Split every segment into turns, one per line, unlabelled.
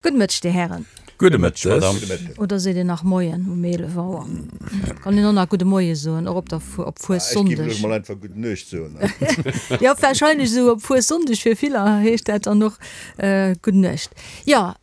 Gudde Mëtteg, Dir Hären.
Gudde Mëtteg, Madame.
Oder seet een nach Moien um 11 Auer? Kann een och nach Gudde Moie soen, och op der op
Fuessonndeg. Ech géif elo mol einfach Gudden Nuecht soen.
Jo, warscheinlech esou op Fuessonndeg fir viller heescht dat dann och Gudden Nuecht. Jo,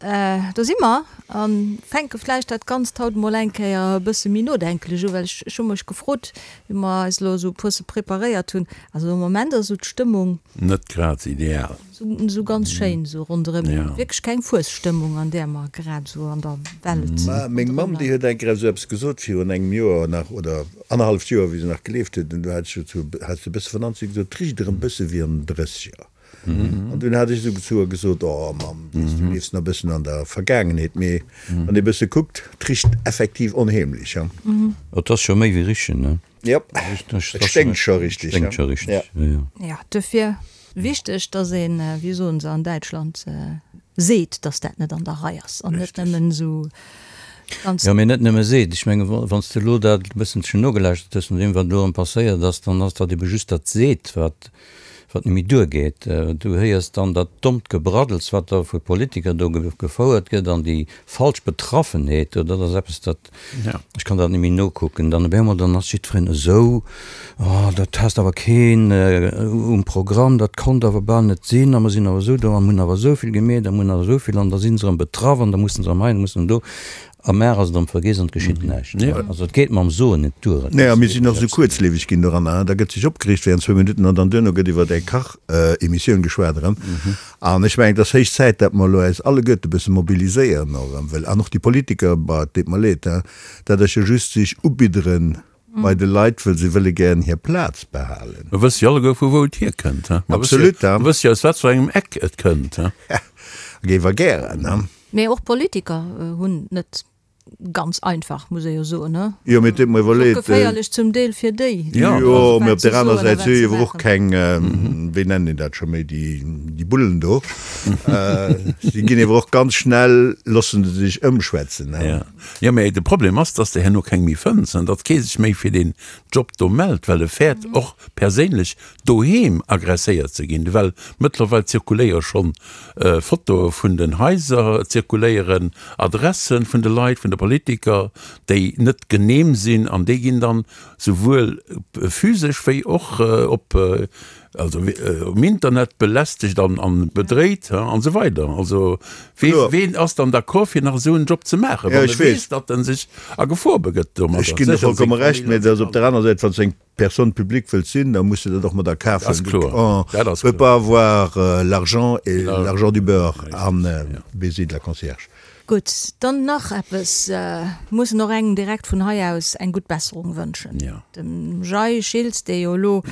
do si mer a fänke vläicht dat Ganzt haut emol eng Kéier e bësse méi nodenklech u, well ech hu mech gefrot, wéi mer eis elo esou e puerse preparéiert hunn, also am Moment ass esou d'Stëmmung.
Net grad ideal.
Sou ganz schéin sou ronderëm. Wierklech keng Fuesstëmmung an där mer grad sou an der Welt.
Ma meng Mamm déi huet eng Kéier esou eppes gesot virun engem Joer nach oder annerhalleft Joer wéi se nach gelieft huet an du hat ech zu hat se e bësse vernannt, si huet gesot, 't richt erëm bësse wéi an den Drësseger. An dunn hat ech esou zu her gesot, oh Mamm, weess du liefs nach e bëssen an der Vergaangenheet. Mee wann ee bësse kuckt, 't richt effektiv onheemlech,
ha. Et ass scho méi wéi richen, ne?
Jop, et sténkt scho richteg,
ha. Sténkt scho richteg, jo, jo.
Jo, duerfir Wichteg, dass een, wéi soen se an Däitschland, seet, dass dat net an der Rei ass an net nëmmen esou
ganz. Jo, mee net nëmme seet. Ech menge wann s de elo dat e bësselchen nogelauschtert hues, no deem wat elo erëm passéiert ass, dann ass dat ebe just dat seet, wat wat net méi duergeet. Du héiers dann dat dommt Gebraddels, wat da vu Politiker do gefouert gëtt an déi falsch Betraffenheet, dat ass eppes, dat Ech kann dat net méi nokucken. Dann op eemol, dann ass jiddwereen esou, Oh, dat passt awer keen um Programm, dat konnt awer bal net sinn a mer sinn awer esou do a mer hunn awer esou vill gemeet a mer hunn awer esou vill an da si se erëm betraff an da musse se erëm hei an da musse se erëm do. A mar ass et erëm vergiess an et geschitt näischt. Also et geet mam Soen net duer. Et
Nee, a mir sinn och esou kuerzlieweg ginn doranner. Da gëtt sech opgereegt während zwou Minutten an dann duerno gëtt iwwer eng Kach-Emissioun geschwat erëm. An ech mengen, et ass héich Zäit, datt mer elo äis alleguerte e bësse mobiliséieren och erëm, well, an och déi Politiker, bah, et deet mer leed, hein, dat ass jo just sech ubiddere bei de Leit, wëll se wëlle gären hir Plaz behalen.
Mer wësse jo alleguer, vu wou et hierkënnt, hein. Mer wësse jo,
Absolut, hein.
mer wësse jo, aus wat fir engem Eck et kënnt, hein.
Ja, géif er gären, hein.
Mee och Politiker hunn net Ganz einfach, muss ee jo soen, ne?
Jo, mee et huet mer iwwerleet.
Och geféierlech zum Deel fir déi.
Jo, mee op där aner Säit, si hu jo awer och keng, wéi nennen een dat scho méi, déi, déi Bullen do. Si ginn ewer och ganz schnell, loosse se sech ëmschwätzen, ne?
Jo, jo, mee de Problem ass, dass de herno keng méi fënns an datt kee sech méi fir deen Job do mellt, well e fäert och perséinlech doheem agresséiert ze ginn, well mëttlerweil zirkuléiere schonn Fotoe vun den Haiser, et zirkuléieren Adressen vun de Leit, vun de Politiker, déi net genehm sinn an déi ginn dann souwuel physesch wéi och op, also um Internet belästegt an bedréit an esou weider. Also ween ass dann d'accord fir nach esou en Job ze maachen, wann e weess, datt en sech a Gefor begëtt domadder?
Ech ginn der vollkomme Recht, mä et ass op der aner Säit, wann s de eng Personne publique wëllt sinn, da muss de dat och mat a Kaf huelen. On ne peut pas avoir l'argent et l'argent du beurre an baiser de la concierge.
Gutt, dann nach eppes, mussen och engem direkt vun hei aus eng gutt Besserung wënschen, dem Jay Schiltz, dee jo elo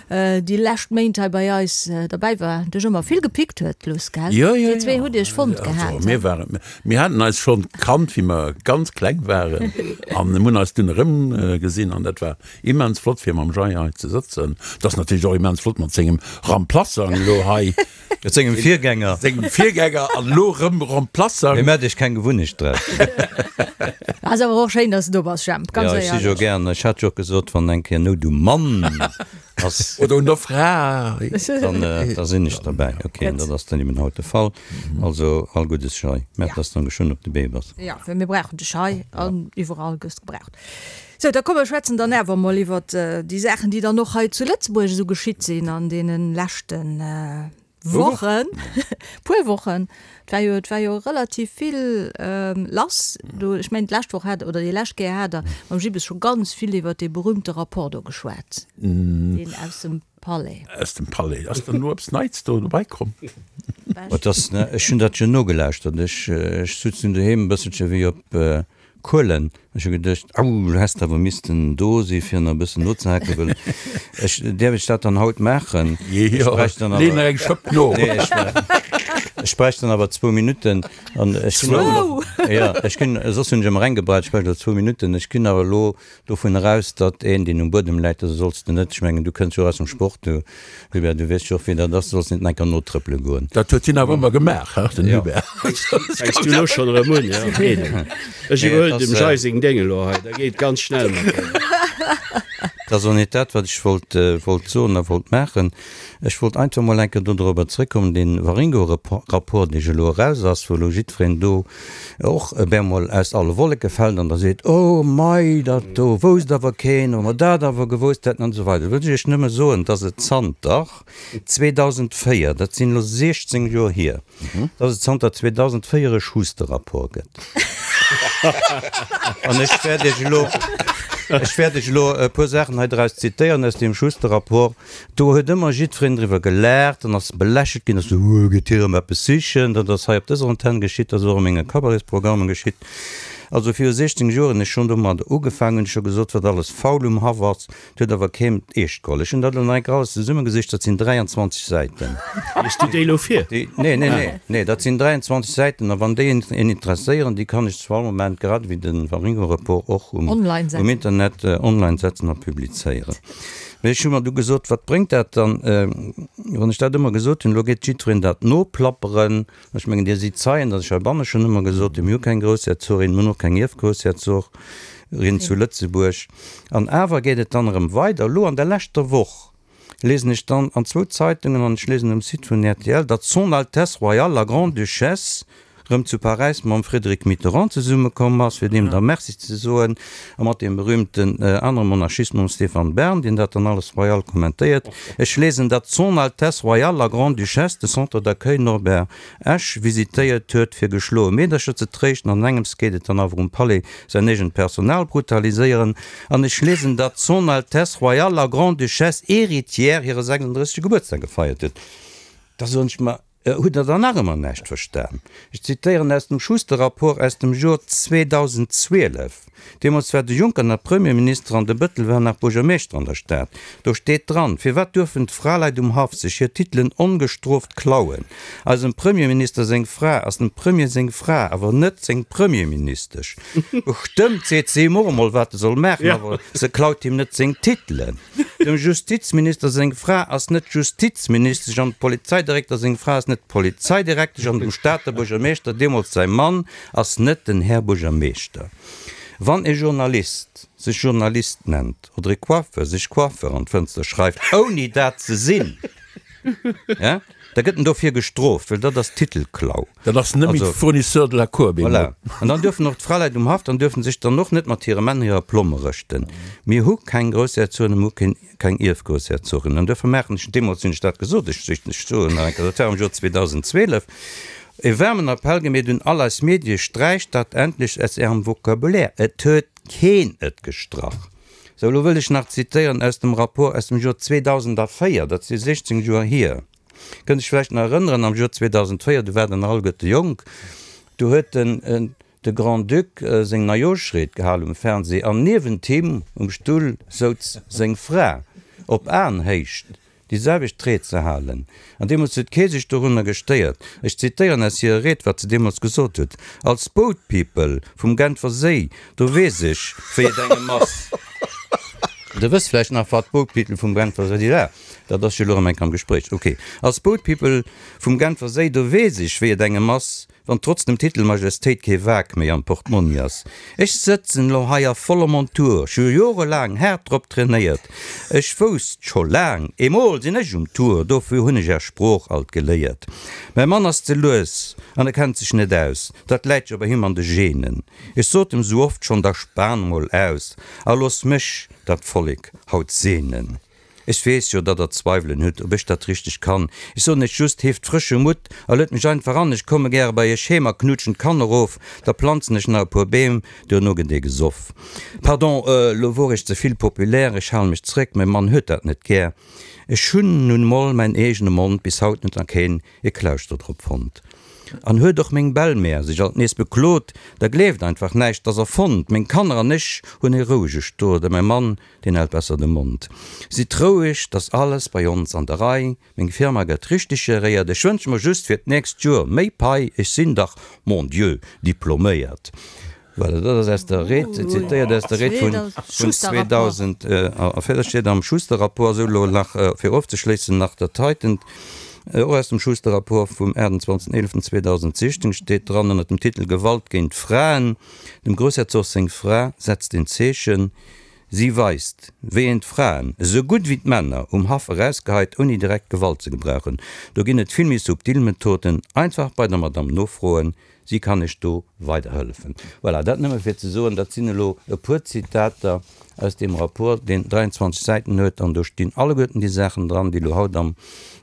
déi lescht Méint hei bei eis derbäi war, dech ëmmer vill gepickt huet, Luss, gell? Dir zwee hutt iech fonnt gehat.
Mir waren, mir haten eis schonn kannt, wéi mer ganz kleng waren an hunn eis dunn erëmgesinn an dat war Immens flott fir mam Jay hei ze sëtzen. Et ass natierlech och immens flott mat sengem Remplaçant elo hei.
Mat sengem Virgänger.
Sengem Virgänger an elo erëm Remplaçant.
Mee maacht iech keng Gewunnecht draus.
Ass awer och schéin, dass de do bass, Jemp, ganz
éierlech. Jo, ech si jo gären. Ech hat jo och gesot, wann eng Kéier Nout um Mann ass.
Oder un der Fra.
Dann, da sinn ech derbäi. Ok, an dat ass dann eben haut de Fall. Also all Guddes, Jay. Mä dass de dann geschwënn op de Bee bass.
Jo, well mir brauchen dech hei an iwwerall gëss gebraucht. Sou, da komm mer schwätzen dann awer emol iwwert déi Saachen, déi dann och hei zu Lëtzebuerg esou geschitt sinn an deene leschte Wochen, puer Wochen. Et war jo, et war jo relativ vill lass do. Ech mengen, d'lescht Woch hat, oder déi lescht Kéier hat Der mam Gibbes scho ganz vill iwwert dee berühmte Rapport do geschwat, deen aus dem Palais.
Aus dem Palais. Ass dann elo eppes Neits do dobäi komm?
Et ass, ech hunn dat jo nogelauschtert. Ech, ech sutz nun doheem e bësselche wéi op Kuelen. Ech hu geduecht, au, du häss awer missten do si fir nach e bëssen nozehaken, well ech, däerf ech dat dann haut maachen?
Ech
Jo, bräicht dann
lee nach awer, eng Schëpp no.
nee, ech, ech bräicht dann awer zwou Minutten an ech ginn awer
Zwou?
Jo, ech ginn, soss hunn ech ëmmer eng gebraucht, ech bräicht elo zwou Minutten. Ech ginn awer elo Dovun eraus, datt een, deen um Buedem läit, also solls de net, ech mengen, du kënns jo och aus dem Sport, du Hubert, du weess jo och, wéi dat ass, du solls net enker notrëppele goen.
Dat huet hien awer ëmmer gemaach, he, den Hubert.
Fänks du elo schonn erëm un, jo? Eden, ech iwwerhuelen dem Jay seng Déng elo hei, da geet et ganz schnell mat deem.
Dat ass och net dat, wat ech wollt, wollt soen a wollt maachen. Ech wollt einfach mol eng Kéier do dorobber zrëckkommen, dee Waringo-Rapport, dee jo elo eraus ass, wou elo jiddwereen do och op eemol aus alle Wolleke fält an da seet, Oh mei, dat do wousst awer keen, wa mer dat awer gewousst hätten an esou weider. Do wëll ech Iech nëmme soen, dass et zanter 2004, dat sinn elo 16 Joer hier, dass et zanter 2004 e Schuster-Rapport gëtt. An ech wäert Iech elo, ech wäert Iech elo e puer Saachen hei draus zitéieren aus deem Schuster-Rapport. Do huet ëmmer jiddwereen driwwer gelaacht an ass belächelt ginn, ass esou, Huuh, geet hie erëm eppes sichen? Dat ass hei op dëser Antenn geschitt, dat ass och a menge Cabaretsprogrammen geschitt. Also viru 16 Joer hunn ech schonn domadder ugefaangen, hunn ech scho gesot, wat alles faul um Haff ass. Et huet awer keen eescht geholl. Ech hunn dat elo nach eng Kéier alles zesummegesicht, dat sinn 23 Säiten.
Lies du déi elo vir?
Déi, nee, nee, nee, nee, dat sinn 23 Säiten a wann déi een interesséieren, déi kann ech zu all Moment, grad ewéi de Waringo-Report och um,
Online
um
setzen.
Internet online setzen a publizéieren. Mee ech hu mer du gesot, wat bréngt dat dann, wann ech dat ëmmer gesot hunn, elo geet jiddwereen dat noplapperen. Ech mengen, Dir sidd Zeien, datt ech heibanne schonn ëmmer gesot hunn, mir hu keng Groussherzogin, mir hunn och keng Ierfgroussherzorin zu Lëtzebuerg. An awer geet et dann erëm weider. Elo an der leschter Woch lesen ech dann an zwou Zeitungen an ech lesen um Site vun rtl, datt Son Altesse Royale la Grande-Duchesse erëm zu Paräis mam Frédéric Mitterrand zesummekomm ass, fir deem da Merci ze soen, a mat deem berühmten anere Monarchist, mam Stéphane Bern, deen dat dann alles royal kommentéiert. Ech lesen, datt Son Altesse Royale la Grande-Duchesse de Centre d'accueil Norbert Esch visitéiert huet, fir geschloe Meedercher ze tréischten. An engems geet et dann awer um Palais säin eegent Personal brutaliséieren. An ech lesen, datt Son Altesse Royale la Grande-Duchesse héritière hire 36. Gebuertsdag gefeiert huet. Da soen ech mer, Hutt Der dann nach ëmmer näischt verstan? Ech zitéieren aus dem Schuster-Rapport aus dem Jor 2012. Deemools war de Juncker nach Premierminister an de Bëttel war nach Buergermeeschter an der Stad. Do steet dran, Firwat duerfen d'Fraleit um Haff sech hir Titelen ongestrooft klauen? Eisem Premierminister seng Fra ass dem Premier seng Fra, awer net seng Premierministesch. Bestëmmt seet se him och emol, wat e soll maachen, awer se klaut him net seng Titelen. Dem Justizminister seng Fra ass net Justizministesch an dem Polizeidirekter seng Fra ass net Polizeidirektesch an dem Stater Buergermeeschter, deemools säi Mann, ass net den Här Buergermeeschter. Wann e Journalist sech Journalist nennt oder e Coiffeur sech Coiffeur an d'Fënster schreift, ouni dat ze sinn, da gëtt en dofir gestrooft, well dat ass Titelklau.
Dat ass net méi de Fournisseur de la Cour bemol.
Voilà. An dann duerfen och d'Fraleit um Haff, dann duerfen sech dann och net mat hire Männer hirer Plomme rëschten. Mir hu keng Groussherzogen, mir hu keen, keng Ierfgroussherzogen. An duerfir maachen ech, deemools hunn ech dat gesot, ech, ech soen nach eng Kéier, dat war am Joer 2012, e waarmen Appell gemeet un all eis Medie, Sträicht dat endlech aus Ärem Vocabulaire! Et huet keen et gestrach. Sou, elo wëll ech nach zitéieren aus dem Rapport aus dem Joer 2004, dat si 16 Joer hier. Kënnt Iech vläicht nach erënneren, am Joer 2004, do waart Der nach alleguerte jonk, do huet den de Grand-Duc seng Neijooschried gehal um Fernseh an niewent him um Stull souz seng Fra, op Aenhéicht, déi selwecht Ried ze halen. An deemools huet kee sech dorunner gestéiert. Ech zitéieren aus hirer Ried, wat se deemools gesot huet, Als Boat People vum Genfer Séi, do weess ech, wéi et engem ass. Der wësst vläicht nach, wat Boat People vum Genfer Séi war. Dat ass jo elo erëm enk am Gespréich. Ok. Als Boat People vum Genfer Séi, do weess ech, wéi et engem ass, wann trotz dem Titel Majestéit kee Wak méi am Portmonni ass. Ech sëtzen elo hei a voller Montur, ech hu jorelaang haart drop trainéiert. Ech wousst scho laang, emol sinn ech um Tour, dofir hunn ech är Sprooch alt geléiert. Mäi Mann ass ze lues an e kennt sech net aus, dat läit jo bei him an de Genen. Ech sot em sou oft schonn, da span mol aus a looss mech dat Vollek haut seenen. Ech weess jo, datt Der Zweiwelen hutt, ob ech dat richteg kann. Ech soen Iech just, Heeft frësche Mutt a luet mech einfach an. Ech komme gäre bei Iech heem a knutschen d'Kanner of. Da planzen ech nach e puer Beem, duerno gëtt ee gesoff. Pardon, elo wor ech ze vill populär, ech hale mech zréck, mäi Mann huet dat net gär. Ech hunn nun mol mäin eegene Mond bis haut net a keen e Klauschter drop fonnt. An huet och meng Belle-mère sech alt nees beklot, da gleeft einfach näischt, 't ass erfonnt. Meng Kanner an ech hunn e rouege Stot a mäi Mann, Deen hält besser de Mond. Sidd roueg, 't ass alles bei ons an der Rei, meng Firma gëtt richteg geréiert, ech wënsche mer just fir d'nächst Joer méi Pai, ech sinn dach, mon Dieu, diploméiert. Voilà, dat ass aus der Ried, zitéiert aus der Ried vun 2004, dat steet am Schuster-Rapport. Esou, elo nach, fir ofzeschléissen, nach dat heitent, och aus dem Schuster-Rapport vum 28.11.2016 steet dran ënnert dem Titel Gewalt géint Fraen, Dem Groussherzog seng Fra setzt een Zeechen. Si weist, wéi een d'Fraen, esou gutt wéi d'Männer, um Haff erausgeheit, ouni direkt Gewalt ze gebrauchen. Do ginn et vill méi subtil Methoden. Einfach bei der Madame nofroen, si kann iech do weiderhëllefen. Voilà, dat nëmme fir ze soen, dat sinn elo e puer Zitater aus deem Rapport, deen 23 Säiten huet, an do stinn alleguerten déi Saachen dran, déi elo haut am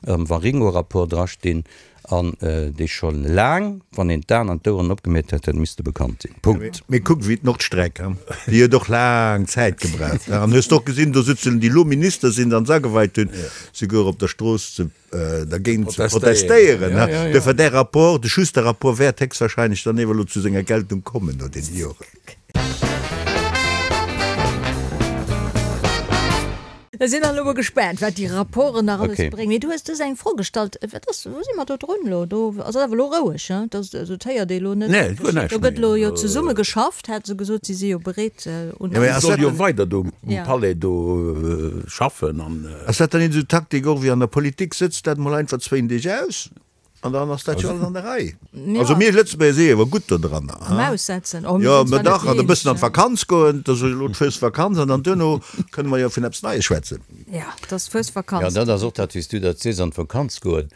Waringo-Rapport drastinn. An déi scho laang, wann een d'Aen an d'Oueren opgemeet hätt, hätt misste bekannt sinn. Punkt.
Mee kuck ewéi d'Nordstreck, déi huet och laang Zäit gebraucht. An hues de och gesinn, do sutzen déi elo Minister sinn an s'ageweit hunn, souguer op der Strooss ze dergéint ze protestéieren. Duerfir däi Rapport, de Schuster-Rapport wäert héchstwahrscheinlech dann ewer elo zu senger Geltung kommen no deene Joren.
Mir sinn elo mol gespaant, wat déi Rapporten nach alles bréngen. Mee du hues dës eng Fro gestallt, Wat ass, wou si mer do drun elo? Do ass awer elo roueg, hein? Dat also et héiert ee elo net.
Nee, guer näischt
Do gëtt elo jo zesumme geschafft, hat se gesot. Si si jo bereet
un. Si soll jo weider do um Palais do schaffen an.
Ass dat dann esou Taktik och wéi an der Politik, Sëtzt dat mol einfach zwéin Deeg aus? An dann ass dat jo alles an der Rei. Also mir Lëtzebuerger si jo awer gutt do dranner.
Am Aussetzen.
Oh, mir sinn zwar net déi eenzeg. Jo, mä dach, an e bëssen an d'Vakanz goen, dat ass elo d'Fuesvakanz, an dann duerno kënne mer jo vun eppes Neies schwätzen.
Ja, et ass Fuesvakanz.
Jo, dat ass och dat, wéi s du dat sees, an d'Vakanz goen.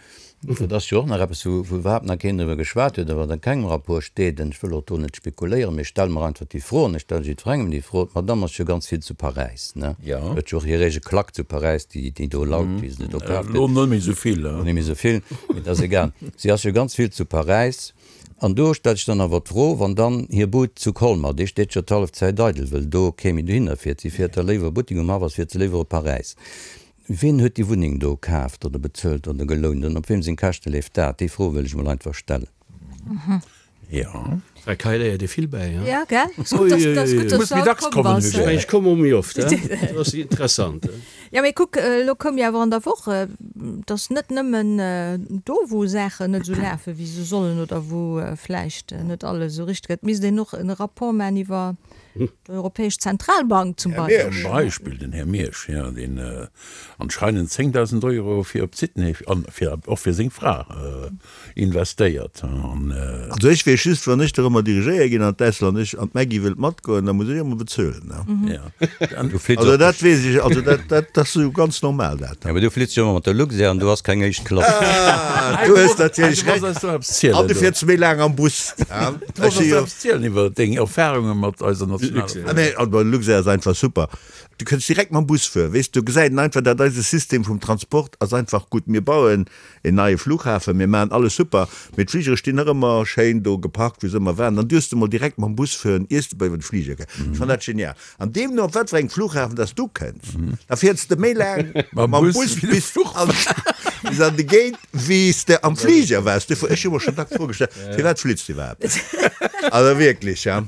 Dat ass jo och nach eppes, wou iwwerhaapt nach keen driwwer geschwat huet a wat a kengem Rapport steet. An ech wëll och do net spekuléieren, mee ech stelle mer einfach déi Fro, an ech stelle jiddwerengem déi Fro, D'Madame ass jo ganz vill zu Paräis, ne? Huet jo och hir eege Klack zu Paräis, déi, déi do laut, wéi se do kaf
gëtt. Elo net méi esou vill.
Elo net méi esou vill, mee dat ass egal. Si ass jo ganz vill zu Paräis. An do stellt sech dann awer d'Fro, wann dann hir Bud zu Colmar, déi steet jo d'hallef Zäit eidel, wëll do kee méi dohinner fiert, si fiert da léiwer Buttek um Haff ass, fiert se léiwer op Paräis. Wien huet déi Wunneng do kaaft oder bezuelt oder gelount an op wiem seng Käschte leeft dat? Déi Fro wëll ech mol einfach stellen.
Jo.
Bei Kai léiert ee vill bäi,
hein? Ja, gell? Ass gutt, dass, dass gutt, dass
Muss
du
méi
haut
dacks
komm
kommen,
bass.
Hugo.
Ech mengen, ech komme och méi oft, hein? Dat ass interessant, hein?
Ja, mee kuck, elo koum jo awer an der Woch, dass net nëmmen do, wou Saachen net esou lafen, wéi se sollen oder wou vläicht net alles esou richteg gëtt, misst een och e Rapport maachen iwwer d'Europäesch Zentralbank zum
Beispill. Zum Beispill den Här Miersch, jo, deen anscheinend 10.000 Euro fir op Sydney an fir och fir seng Fra investéiert an.
Also ech weess just, wann ech dorëmmer dirigéiert ginn an d'Ausland, ech an d'Maggy wëllt matgoen, da muss ech ëmmer bezuelen, ne? Also dat weess ech, also dat, dat ass esou ganz normal dat.
Jo, mee du flitt jo ëmmer mat der Luxair an du has keng éischt Klass.
Ah, du hues natierlech Recht. An du fiers méi laang am Bus.
Du wolls eis eppes zielen iwwer deng Erfahrunge mat eiser nationaler
Fluchmaschinn. Nee, also Luxair ass einfach super. Du kënns direkt mam Bus fueren, weess, du gesäit een einfach, dat eise System vum Transport ass einfach gutt. Mir bauen een neie Flughafen, mir maachen alles super, mee d'Fligere stinn nach ëmmer schéin do geparkt, wou se ëmmer waren. Dann duerfs de mol direkt mam Bus fueren, iers de bei iwwer de Fliger kënns. Ech fannen dat genial. An deemno, op wat fir engem Flughafen dass du kënns, da fiers de méi laang mam Bus bis an bis an de Gate, wéi s de am Fliger waars. Duerfir, ech hu mer schonn dacks d'Fro gestallt, Firwat flitt s de iwwerhaapt? Also wierklech, ja,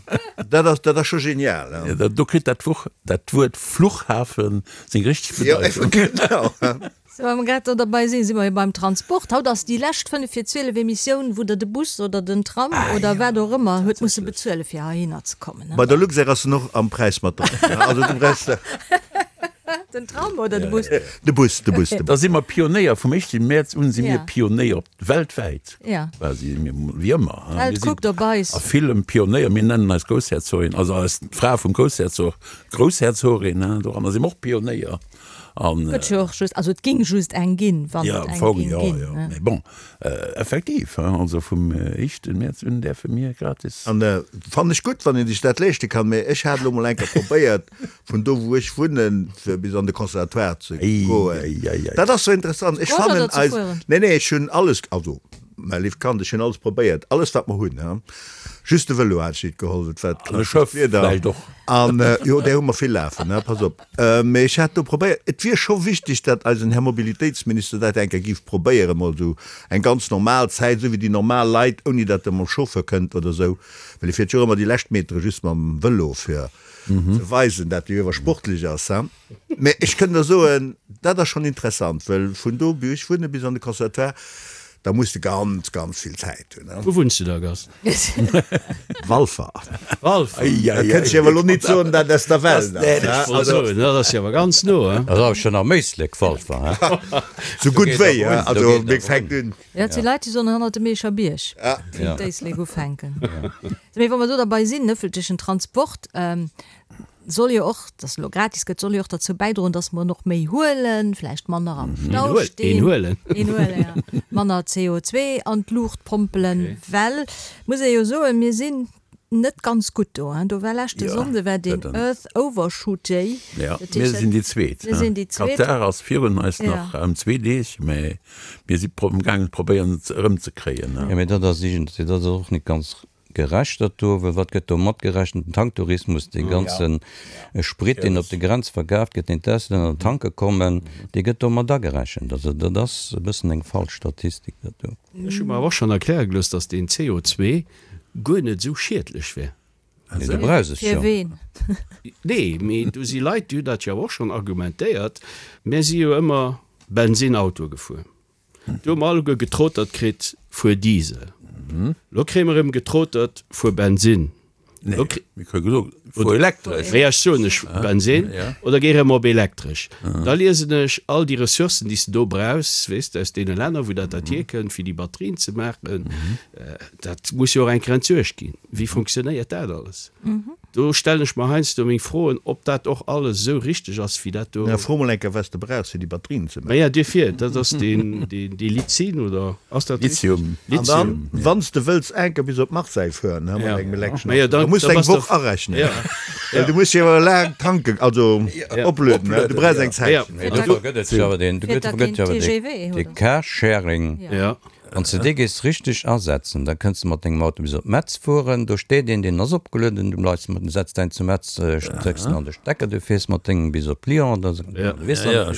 dat ass, dat ass scho genial,
ja. Ja, do kritt dat Wuch, dat Wuert Fluchhafen seng richteg
Bedeitung. Ja, genau.
Sou, wa mer grad do derbei sinn, si mer jo beim Transport. Haut ass déi lescht 5 vir 12 Emissioun, wou Der de Bus oder den Tram oder wat och ëmmer huet musse bezuele fir heihinner ze kommen.
Bei der Luxair ass en och am Präis mat dran. Also du brauchs de.
Den Tram oder de Bus?
De Bus, de Bus, de Bus.
Da si mer Pionéier. Vum éischte Mäerz un si mir Pionéier weltwäit.
Ja.
Quasi, mir, wéi ëmmer.
D'Welt kuckt op eis.
A villem Pionéier. Mir nennen eis Groussherzogin, also eis d'Fra vum Groussherzog Groussherzogin, doranner si mer och Pionéier.
An, Gëtt jo och just, also et ging just eng ginn, wann
et eng ging ginn. Jo, jo, mee bon, effektiv, also vum éischte Mäerz un däerfe mir gratis.
An fannen ech gutt, wann een sech dat leeschte kann, mee ech hat elo mol eng Kéier probéiert, vun do wou ech wunnen, fir bis an de Conservatoire ze goen. Dat ass sou interessant, ech fannen eis, nee, nee, ech hunn alles, also mäi léift Kand, ech hunn alles probéiert, alles wat mer hunn, just de Vëlo hat ech nit geholl, et war
d'klassescht Wieder.
An jo, där hu mer vill lafen, pass op. Mee ech hat do probéiert, et wier scho wichteg, datt eisen Här Mobilitéitsminister dat eng Kéier géif probéieren, emol esou eng ganz normal Zäit, esou wéi déi normal Leit, ouni datt e mam Chauffeur kënnt oder esou, well e fiert jo och ëmmer déi lescht Metere just mam Vëlo, fir ze weisen, datt e jo awer sportlech ass. Mee ech kënn der soen, dat ass schonn interessant, well vun do, wou ech wunne, bis an de Conservatoire, da muss de ganz, ganz vill Zäit hunn.
Wou wunns du da, Gast?
Walfer.
Walfer.
Da kënnt ech awer elo nit soen, dat ass der Welt
ass. Also, dat ass jo awer ganz no,
hein? Dat ass awer schonn am Éislek, Walfer,
hein? Sou gutt wéi, hein? Also, mir fänkt un.
Ja, et si Leit, déi soen hannert dem Eecher Bierg fänkt d'Éislek ufänken. Mee wa mer do derbei sinn, ëffentlechen Transport. Soll jo och, dass elo gratis gëtt, soll jo och derzou bäidroen, dass mer en och méi huelen, vläicht manner am Stau stinn.
Een huelen.
Een huelen, ja. Manner CO2 an d'Luucht pompelen, well, muss ee jo soen, mir sinn net ganz gutt do. Do war leschte Sonnde war deen Earth Overshoot Day.
Jo, mir sinn déi Zweet.
Mir sinn déi Zweet.
Katar ass virun eis nach ëm zwee Deeg, mä mir si amgaangen, probéieren et erëmzekréien.
Jo, mä dat ass iergendwéi, dat ass och net ganz Gerecht dat do, well wat gëtt do matgerechent? Den Tanktourismus, dee ganze Sprit, deen op de Grenze verkaaft gëtt, deen d'Auslänner tanke kommen, dee gëtt do mat agerechent. Also dat ass e bëssen eng falsch Statistik, dat do.
Ech hu mer awer och schonn erkläre gelooss, datt deen CO2 guer net esou schiedlech wär.
Nee, du brauchs es
jo. Fir ween?
Nee, mee do si Leit, déi hunn dat jo awer och schonn argumentéiert. Mär si jo ëmmer Bensinnauto gefuer. Do hu mer alleguer getrotert kritt, fuer Diesel. Lo kréie mer erëm getrotert, fuer Bensinn.
Nee, mir kréie gesot, fuer elektresch.
Wéi ech soen ech Bensinn oder géi erëm op elektresch. Da liesen ech all déi Ressourcen, déi s de do brauchs, weess de, aus deene Länner, wou dat dat hierkënnt, fir déi Batterien ze maachen. Dat muss jo och eng Kéier entsuergt ginn. Wéi funktionéiert dat alles? Do stellen ech mer heiansdo meng Froen, ob dat och alles esou richteg ass, wéi dat do.
Na, fro mol eng Kéier, wat s de brauchs, fir déi Batterien ze maachen.
Maja, duerfir, dat ass deen, deen, dee Lizin, oder ass dat richteg?
Lithium.
An dann, wann s de wëlls eng Kéier bis op Marseille fueren, mat engem elektreschen
Maja,
Auto,
da
da muss de
da
eng
bass de
Woch arechnen.
Ja.
Well du muss jo laang tanken, also oplueden, du brauchs eng
Zäitchen.
Mee
dofir gëtt et jo awer deen,
Fiert da
dofir gëtt
keen
jo awer
TGV,
dee
oder?
Carsharing.
Ja.
Wann s de dee géifs richteg asetzen, da kënns de mat dengem Auto bis op Metz fueren. Do steet een, deen ass opgelueden, du bleifs mat, setz däin zu Metz, stécks en an de Stecker, du fiers mat dengem bis op Lyon oder du weess dann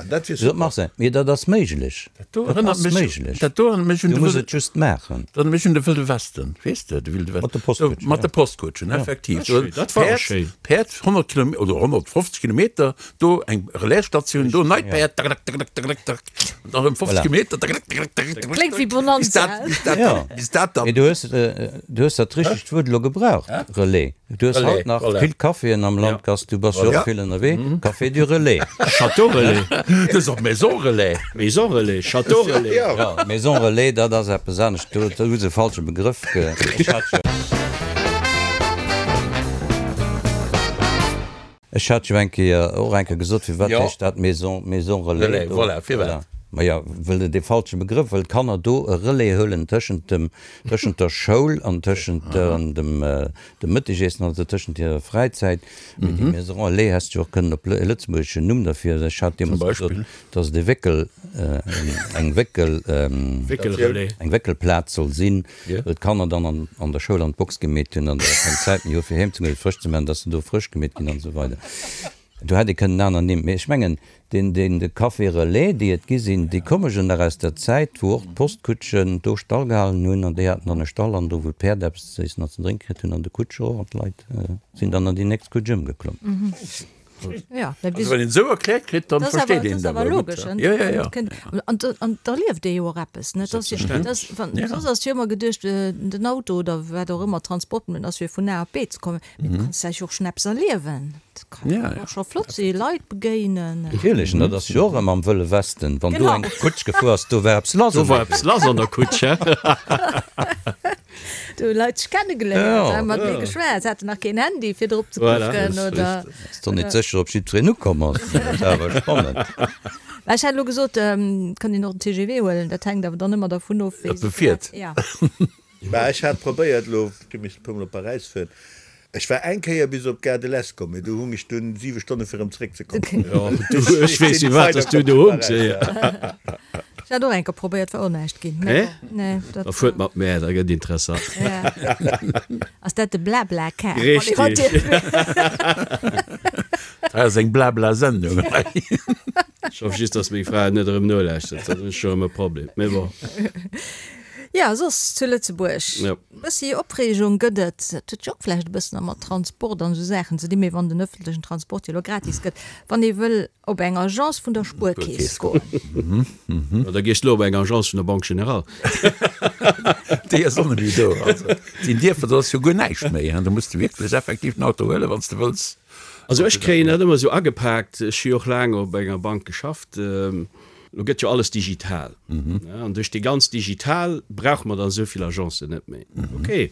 net, bis op Marseille. Mee dat ass méiglech, dat ass méiglech. Du muss et just maachen.
Dat erënnert mech un de Wëlde Westen, weess de, de Wilde Westen.
Mat de Postkutschen.
Mat de Postkutschen, effektiv.
Dat war och schéin.
Päerd 100 Kilometer oder 150 Kilometer, do eng Relaisstatioun, do neit Päerd, tak, tak, tak, tak, tak. An dann erëm 50 Kilometer.
Kléngt wéi Bonanza.
Bis dat, ja. Bis dat
dann. Mee du hues, du hues dat richtegt Wuert elo gebraucht, Relais. Du hues haut nach vill Caféen am Land, Gast, du bass jo och vill ënnerwee. Café du Relais.
Château Relais.
Dat ass och Maison Relais.
Maison Relais, Château Relais.
Ja, Maison Relais, dat ass eppes anescht. Do hu se e falsche Begrëff ge. Ech hat jo eng Kéier och eng Kéier gesot, firwat heescht dat Maison, Maison Relais do?
Voilà, firwat?
Maja, well et e falsche Begrëff, well d'Kanner do e Relais huelen tëschent dem, tëschent der Schoul an tëschent dem, dem Mëttegiessen, also tëschent hirer Fräizäit. Mee déi Maison Relais häss de jo och kënnen op e lëtzebuergeschen Numm derfir, ech hat deemools gesot, dass et e Wéckel, eng Wéckel,
Wéckelrelais.
eng Wéckelplaz soll sinn. Wou d'Kanner dann an an der Schoul an d'Box gemeet hunn an da keng Zäit méi hu fir heem ze goen, fir frësch ze maachen, dass se do frësch gemeet ginn an esou weider. Do hätt ee kënnen aner Nimm, mee ech mengen deen deen de Café Relais, déi et gi sinn, déi komme jo nach aus der Zäit, wou och d'Postkutschen do Stall gehalen hunn an déi haten dann e Stall an do wou d'Päerd eppes ze iessen an ze drénke kritt hunn an de Kutscher och an d'Leit sinn dann an déi nächst Kutsch ëmgeklomm.
Ja,
also wann een esou erkläert kritt, dann versteet een dat
awer logesch.
Ja, ja, ja.
An, an da lieft ee jo och eppes, net? Das, das, wann, ja. Soss ass jo ëmmer geduecht, den Auto oder wat och ëmmer Transportmëttel ass fir vun A op B ze kommen. Mee du kanns dech och schonn eppes erliewen. Dat kann
ja,
ja. och scho flott si, Leit begéinen.
Natierlech, an dat ass jo och ëmmer am Wëlle Westen. Wann do eng Kutsch gefuer ass, do war eppes lass.
Do war eppes lass an der Kutsch, hä?
Do hu Leit sech kennegeléiert, hu mat mir geschwat, se haten nach keen Handy fir drop ze kucken oder.
Ass doch net sécher, ob jiddwereen ukomm ass. Dat war awer spannend.
Mä ech hat elo gesot, et kann een och den TGV huelen, dat hänkt awer dann ëmmer dervun of, wéi
Ob e fiert.
Ja.
Mä ech hat probéiert elo, ech hu missen e puermol op Paräis fueren, ech war eng Kéier bis op d'Gare de l'Est komm, mee do hung ech dunn 7 Stonne fir erëm zeréckzekommen.
Jo, du, ech weess firwat dass du do hungs.
Ech hat och eng Kéier probéiert, war och näischt ginn.
Nee?
Nee, dat.
Da fuert mat mär, da gëtt interessant.
Ja. Ass dat de Blablacar?
Richtig.
Dat ass eng Blabla-Sendung hei.
Ech hoff just, dass meng Fra et net erëm nolauschtert, dann hunn ech scho erëm e Problem. Mee bon.
Ja, soss zu Lëtzebuerg.
Ja.
Bëssi Opreegung gëtt et. Dat huet jo och vläicht e bëssen da mat Transport an esou Saachen ze dinn, mee wann den ëffentlechen Transport jo elo gratis gëtt, wann ee wëll op eng Agence vun der Spuerkeess goen.
Jo, da gees de elo op eng Agence vun der Banque Générale.
Déi ass och net méi do. Also, sinn Dierfer, do ass jo guer näischt méi, hein. Do muss de wierklech effektiv den Auto huelen, wann s de wëlls.
Also ech kréien dat ëmmer esou agepaakt, ech hu jo och laang op enger Bank geschafft, elo gëtt jo alles digital, an duerch déi ganz digital brauche mer dann esou vill Agencen net méi. Okay.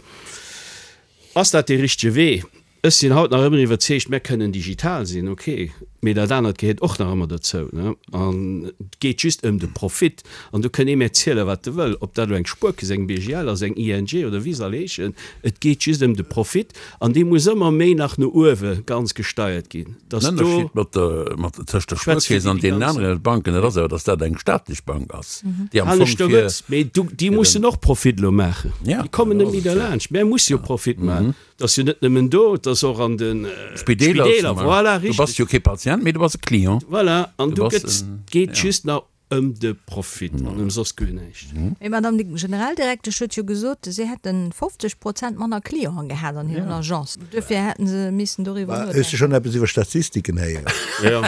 Ass dat dee richtege Wee? Ech sinn haut nach ëmmer iwwerzeegt, mär kënnen digital sinn, ok, mee dat anert gehéiert och nach ëmmer dozou, ne? An et geet just ëm de Profit. An do kënn ee mär zielen, wat e wëll, ob dat elo eng Spuerkeess, eng BGL ass, eng ING oder wéi se all heeschen, et geet just ëm de Profit an dee muss ëmmer méi nach no uewe ganz gesteiert ginn, dass
Den
do.
Ënnerscheed mat der, mat, tëscht der
Schwätz fir
Spuerkeess an
déi
deenen
ganz.
anere Banken, dat ass awer, dass dat eng staatlech Bank ass, déi am Fong
Aneschter
fir.
net, mee du, déi mussen och Profit elo maachen.
Ja,
Déi kommen
dat
net
ass
méi
et jo.
derlaanscht. Mär musse jo Profit maachen. Et ass jo net nëmmen do, et ass och an de
Spideeler,
Spideeler, voilà,
Du bass
richteg.
jo kee Patient, mee du bass e Client.
Voilà, an
Du
do
bass
gëtt,
en,
geet
ja.
just nach ëm de Profit an ëm soss guer näischt.
Mee d'Madame Generaldirektesch huet jo gesot, si hätte 50 Prozent manner Clienten gehat an hiren Agencen. Duerfir hätte se missen doriwwer
Hues du
nodenken.
schonn eppes iwwer Statistiken héieren?
Jo.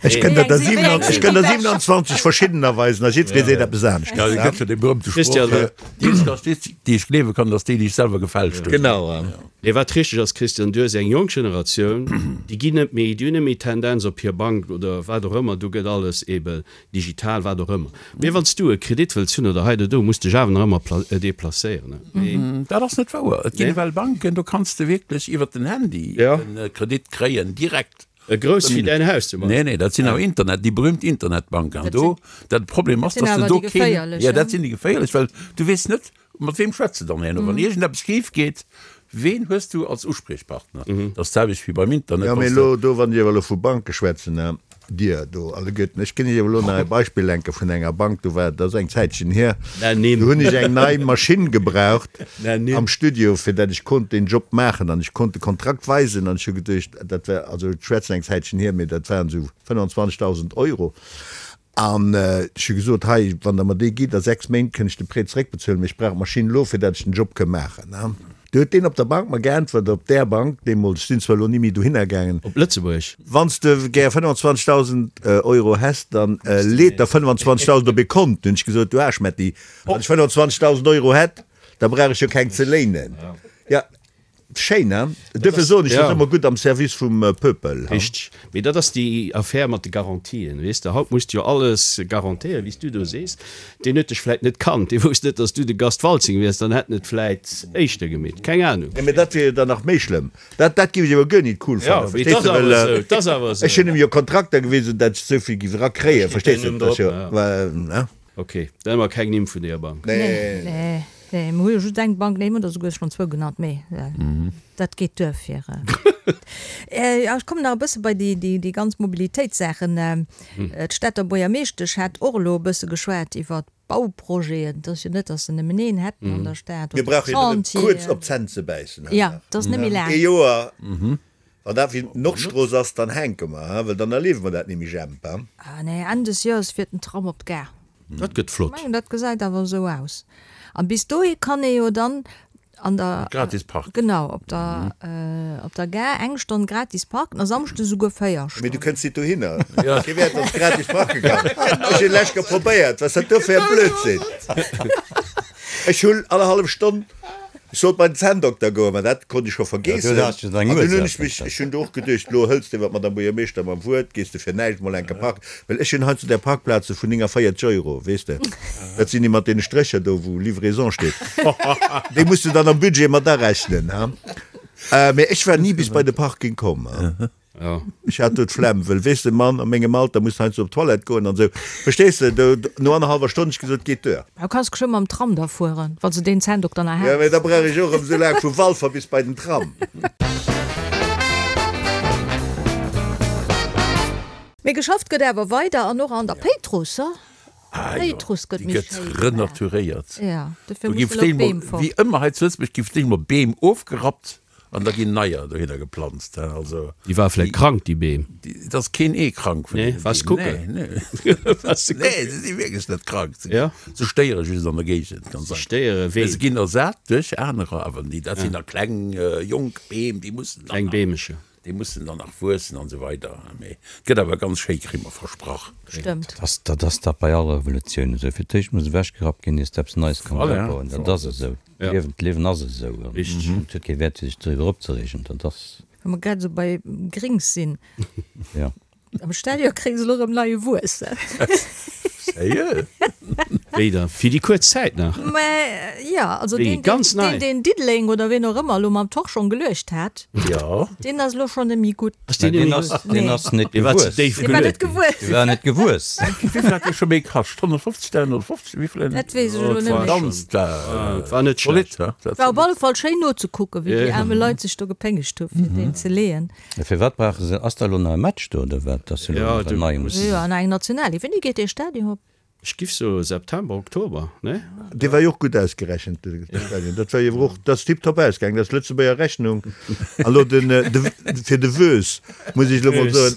Ech kënnt der
Wéi eng
der
sinn déi bescht?
27 verschiddener weisen a jiddweree seet eppes anescht.
Ja, et gëtt jo dee berühmte Sproch,
Christian,
déi Statistik, déi ech gleewe kann, dat ass déi, déi ech selwer gefälscht hunn.
Genau.
Nee, wat richteg ass, Christian, du hues eng jonk Generatioun, déi ginn net méi, déi hunn net méi d'Tendenz op hir Bank oder wat och ëmmer, do gëtt alles ebe digital, wat och ëmmer. Mee wann s du e Kredit wëlls hunn oder hei oder do, muss dech awer nach ëmmer deplacéieren. Mee.
Dat ass net wouer. Et ginn ewell Banken, do kanns de wierklech iwwert den Handy e Kredit kréien, direkt.
E grouss wéi däin Haus zum
Beispill. Nee, nee, dat sinn awer Internet, déi berühmt Internetbanken. An do, dat Problem ass, dass de do keen, jo, dat sinn déi geféierlech, well du weess net, mat weem schwätz de dann herno, wann iergendeppes schif geet, ween hues du als Uspriechpartner? Dat ass d'selwecht wéi beim Internet,
Jo, mee
wann s de.
elo do, wann Dir awer elo vu Banke schwätzen, Dir do alleguerten, ech ginn Iech awer elo nach e Beispill enke vun enger Bank, do war, dat ass eng Zäitchen hier, do hunn ech eng nei Maschinn gebraucht am Studio, fir dat ech konnt deen Job maachen an ech konnt de Kontrakt weisen an ech hu geduecht, dat war, also ech schwätzen eng Zäitchen hier, mee dat waren esou 25.000 Euro an ech hu gesot, hei, wann Der mer dee gitt, a 6 Méint kënn ech de Prêt zeréckbezuelen, mee ech brauch d'Maschinn elo, fir dat ech den Job kënn maachen. Du huet deen op der Bank mer geäntwert, op där Bank deemools, ech sinn zwar elo ni méi dohinner gaangen.
Op Lëtzebuerg?
Wann s de gär 25.000 Euro häss, dann leet der 25.000 op ee Kont. Hunn ech gesot, du Aarschmetti, wann ech 25.000 Euro hätt, da brauch ech jo keng ze léinen. Jo, schéin, hein? Duerfir soen ech, dat ass ëmmer gutt am Service vum Peuple.
Richteg. Mee dat ass déi Affär mat de Garantien, weess de. Haut muss de jo alles garantéieren, wéi s du do sees. Deen huet dech vläit net kannt, dee wousst net, datt s du de Gast Waltzing wiers, dann hätt en et vläit éischter gemeet. Keng Anung.
Nee, mee dat wier jo dann nach méi schlëmm. Dat, dat géif ech awer guer nit cool fannen,
Jo, mee
verstees
et
de,
ass awer
well
esou, et ass awer esou.
ech hunn em jo Kontrakter gewisen, datt ech esou vill géif erakréien,
Da steet
verstees
däin
de,
Numm
dat ass
drop,
jo,
ja.
ne?
Ok, dann hu mer keng Nimm vun deeër Bank.
Nee.
Nee, nee, mer hu jo just eng Bank, nee, mer hunn der souguer schonn zwou genannt, mee dat geet duer fir. Jo, ech kommen nach e bësse bei déi, déi, déi ganz Mobilitéitssaachen. D'Stater Buergermeeschtesch hat och elo e bësse geschwat iwwer Bauprojeten. Et ass jo net, datt se nëmmen een hätten an der Stad
Mir
oder
brauche jo nëmmen kuerz
Chantieren.
op d'Zänn ze bäissen,
Jo, et ass net méi laang.
Ee Joer. Wann dat wéi d'Nordstrooss ass, dann hänke mer, hein, well dann erliewe mer dat nimmi, Jemp, hein.
Ah nee, Enn des Joers fiert den Tram op d'Gare.
Dat gëtt flott.
Ech mengen, dat gesäit awer esou aus. An bis dohi kann ee jo dann an der.
Gratis parken.
Genau, op der, op der Gare eng Stonn gratis parken a Samschdes esouguer 4 Stonnen.
Mee du kënns nit dohinner. Kee wäert, dass gratis parke kann. Ech hunn lech probéiert. Wat ass dat do fir e Blödsinn? Ech hunn allerhallef Stonn. Ech sollt bei den Zänndokter goen, mä dat konnt ech scho vergeessen. An dunn hunn ech mech, ech hunn do och geduecht, elo hëls de iwwer d'Madame Buergermeeschter mam Wuert, gees de fir näischt mol enke parken, well ech hunn heiansdo där Parkplaze vun 49 Euro, weess de, dat sinn déi mat deene Strécher do, wou Livraison steet, déi muss de dann am Budget mat arechnen, ha. Mä ech war ni bis bei de Parking komm, ha. Ech hat do d'Flemm, wëll weess de, Mann, a mengem Alter muss heiansdo op d'Toilette goen an esou, verstees de, do no annerhallwer Stonn hunn ech gesot, geet duer.
Du kanns geschwë mam Tram da fueren, wann s de deen Zänndokter nach
Jo,
häss.
mee da brauch ech och erëm esou laang vu Walfer bis bei den Tram.
Mee geschafft gëtt awer weider an och an der Péitruss, ha?
Ah jo,
Péitruss gëtt
déi
méi
gëtt
schéi gemaach.
renaturéiert.
Jo, dofir
Do gi
musse elo d'Beem fort.
Wéi ëmmer hei zu Lëtzebuerg gi vläicht mol Beem ofgerappt An da ginn neier dohinner geplanzt. Also,
Déi war vläit krank, déi Beem.
Et ass keen Ee krank vun
Nee,
deenen
waars
Beem.
kucken?
Nee, nee.
Waars de
Nee,
kucken?
se si wierklech net krank. Se,
Ja.
se stéiere just an der Géigend, ganz
Se
einfach.
stéiere
Mee
ween?
se ginn ersat duerch anerer, awer déi, dat sinn da kleng, jonk Beem, déi mussen dann
Kleng
nach,
Beemecher.
déi mussen dann nach wuessen an esou weider. Mee et gëtt awer ganz schéi, kri mer versprach.
Stëmmt.
Dat ass, dat ass dat bei all Revolutioun esou. Fir d'éischt muss ewechgerappt ginn, ier s de eppes Neies kanns
Voilà.
opbauen. Dat ass esou.
Ja.
D'Liewen, d'Liewen ass esou an
Richteg.
et huet kee Wäert fir sech doriwwer opzereegen. Dat ass.
Wa mer grad esou bei Grings sinn,
Ja.
am Stadion kréie se elo erëm neie Wuess.
Sérieux?
Wéi? Wéi da? Fir déi kuerz Zäit nach?
Mä jo, also
Wéi,
deen,
ganz
deen,
nei?
deen Diddeleng oder ween och ëmmer elo mam Torschong geluecht hat,
Jo.
deen ass elo schonn net méi gutt.
Ass deen
Deen
net méi
ass,
gutt?
deen
Nee.
ass net
Dee war ze
gewuess.
déif
Dee war net
geluet ginn.
gewuess.
Dee war net gewuess.
Wéivill hat dee scho méi kascht? 150, 350, wéivill en?
Dat weess ech elo
Et
net
war
méi.
Ganz
schon, et war net
zolidd,
schlecht.
he? Dat
War op alle Fall schéin nozekucken, wéi déi
Ja.
aarme Leit sech do gepéngegt hu fir deen ze leeën.
Firwat brauche se, ass da elo nach e Match do oder wat, dass se elo
Ja,
nach
du
en neie
muss.
mussen?
Jo, an eng Nationalequipe. Wéini geet dee Stadion op?
Ech giff soe September, Oktober, ne?
Dee war jo och gutt ausgerechent, de Stadion. Dat war jo awer och, dat ass tiptop ausgaangen, dat ass Lëtzebuerger Rechnung. An elo den, de, fir de Woes muss ech elo mol soen,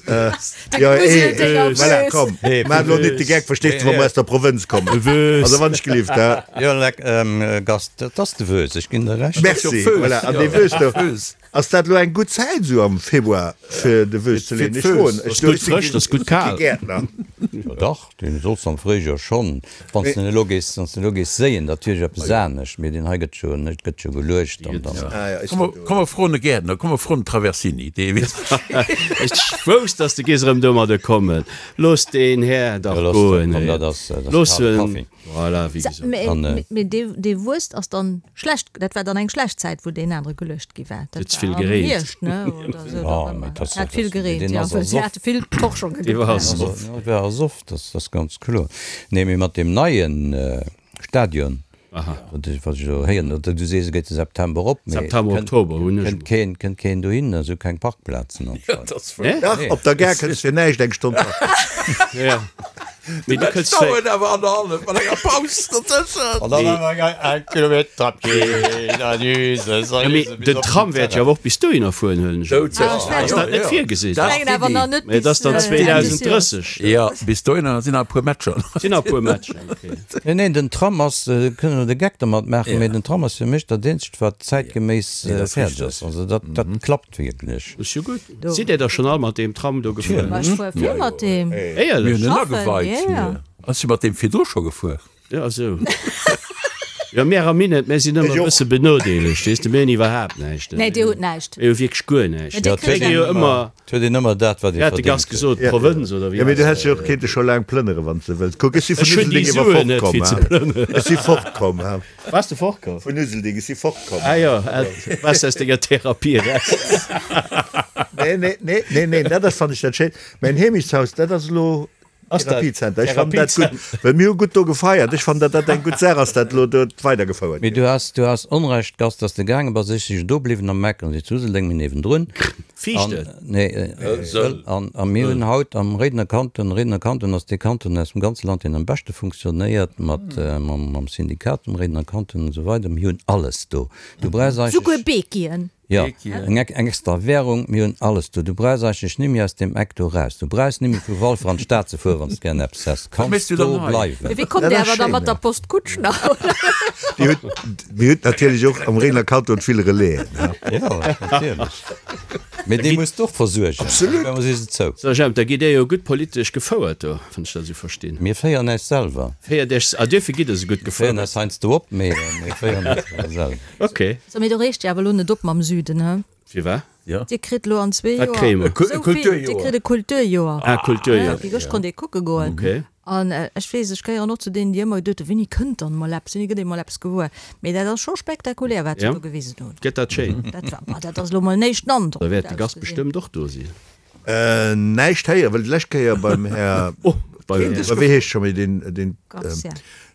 jo, ee, voilà, komm, maach elo net de Geck, verstees de, wa mer aus der Provënz kommen. Also wann ech gelift, hä?
Jo, leck, Gast, dat ass de Woes, ech ginn der Recht.
Merci, voilà, an dee Woes do. Ass dat elo eng gutt Zäit esou am Februar fir de Woes ze leeën? Ech froen, ech
Ass gutt frësch, ass gutt kal.
si kee Gäertner.
Jo dach, deen solls am Fréijoer schonn, wann s de en elo gees, wann s de elo gees séien, dat wier jo eppes anescht, mee deen hei gëtt jo, net gëtt jo geluecht an dann.
Komm mer froen e Gäertner, komm mer froen den Traversini, dee weess Bescheed.
Ech wousst, dass de gees erëm domadder kommen. Looss deen Här dach
Jo, looss
goen,
komm, dat ass, dat ass
Looss
kale
en.
Kaffi.
Voilà, wéi gesot.
Mee dee Wuest ass dann schlecht, dat war dann eng schlecht Zäit, wou deen anere geluecht gi war.
Huet
Dat
vill
war am
gereent.
Hierscht, ne, oder esou,
Ja,
oder
mee
ëmmer.
dat ass
Hat vill gereent,
deen
jo,
ass
well se
ersoff.
hate vill Torschonge
Dee war
gebraucht.
ersoff.
Dat war ersoff, dat ass ganz kloer. Nee, mee mat deem neie Stadion,
Aha.
wat ech wat ech elo héieren, oder du sees, e geet de September op, mee
September,
kënnt
Oktober hunn ech
kënnt
emol.
keen kënnt keen dohin, esou keng Parkplazen anscheinend.
Dat ass wuer.
Nee?
Dach, op der Gare kënns fir näischt eng Stonn parken.
Ja. Mee du kënns vläicht.
Dauert awer annerhallef mat enger Paus dozëschen.
An dann awer eng Kilometer
Ja, mee den Tram wäert jo awer och bis dohinner fueren, huelen ech un.
Ah,
Ass dat net virgesinn?
Dat
Mengen awer nach net
Mee et ass dann
bis, äh, Enn des Joers.
2030.
Jo, bis dohinner sinn nach e puer Matcher.
Sinn nach e puer Matcher, okay.
Nee, neen, den Tram ass, kënnen elo de Geck dermat maachen, mee den Tram ass fir mech dat eenzegt, wat zäitgeméiss fäerdeg ass. Also dat, dat klappt wierklech.
Ass jo gutt. Sidd Dir da schonn all mat deem Tram do gefuer?
Ma ech fuer vill mat deem.
Éierlech?
Mir hunn en
Schaffen,
ageweit.
ja.
Ech si mat deem virdru scho gefuer.
Ja, esou. Jo, mär am Minett, mär sinn ëmmer e bësse benodeelegt, weess de, mir hunn iwwerhaapt näischt.
Nee, dir hutt näischt.
Mir hu wierklech guer näischt.
Mä dir kritt
Mir gi jo
eng.
ëmmer,
Et huet een ëmmer dat, wat ee
wéi hat de Gast
verdéngt huet.
gesot, Provënz oder wéi
Jo, mee du
ass
häss jo och kéinte scho laang plënnere wann s de wëlls. Kuck, ech si vun
Ech hunn déi
Uselding iwwer
Suen net,
fortkomm,
fir ze
ha.
plënneren.
Ech si fortkomm, ha.
Bass de fortkomm?
Vun Uselding, ech si fortkomm.
Ah jo, bass aus denger Therapie eraus.
Nee, nee, nee, nee, nee, dat ass, fannen ech dat schéin. Mäin Heemechtshaus, dat ass elo
Ass dat
Therapiezenter. Ech fannen dat gutt, well mir hu gutt do gefeiert. Ech fannen, datt dat eng gutt Saach ass, dat elo do weidergefouert
Mee
gëtt.
du has, du has Onrecht, Gast, dass de gaange bass. Ech si jo do bliwwen am Eck an si zu Useldeng, mir niewendrun.
Fiicht
An,
et?
nee, Sëll. An, a mir hunn haut am Réidener Kanton, Réidener Kanton ass dee Kanton aus dem ganze Land, deen am beschte funktionéiert, mat, mam, mam Syndikat vum Réidener Kanton an esou weider. Mir hunn alles do. Du brauchs
Souguer
eigentlech.
Bekien.
Jo, eng eng extra Währung, mir hunn alles do. Du brauchs eigentlech nimmi aus deem Eck do raus. Du brauchs nimmi vu Walfer an d'Stad ze fueren, wann s de gären eppes häss. Kanns do bleiwen.
Mee wéi kommt Dir awer da mat der Postkutsch nach, oder?
Dir hutt, mir hutt natierlech och am Réidener Kanton vill Relaisen, he?
Jo, natierlech. Mee déi muss de och versuergen.
Absolut.
Op eemol si se zou.
So Jemp, da gitt Dir jo gutt politesch gefouert do, wann ech dat esou verstinn.
Mir féieren äis selwer.
Féiert Iech, ah duerfir gitt Der esou gutt
Mir féieren
gefouert.
äis heiansdo op, mee mir féieren äis awer selwer.
Ok.
So, mee do reegt Dir awer elo net op mam Süden, he?
Firwat?
Ja.
Dir kritt elo an zwee
Wat
Joer
kréie mer?
esou vill. Dir
Kulturjoer.
kritt e Kulturjoer.
Ah, Kulturjoer.
Déi gëscht konnt ee kucke goen.
Ok.
An ech weess, ech gehéieren och zu deenen, déi ëmmer geduet hunn, Wéini kënnt dann emol eppes, wéini gëtt emol eppes gewuer? Mee dat ass scho spektakulär, wat se
Ja.
do gewisen hunn.
Gëtt dat schéin?
Dat war, boah, dat ass elo mol en éischten Androck.
Da wäert de Gast bestëmmt och do sinn.
Näischt héieren, well d'lescht Kéier beim Här,
Oh, beim Här.
wéi heescht scho méi deen, deen,
Garcia.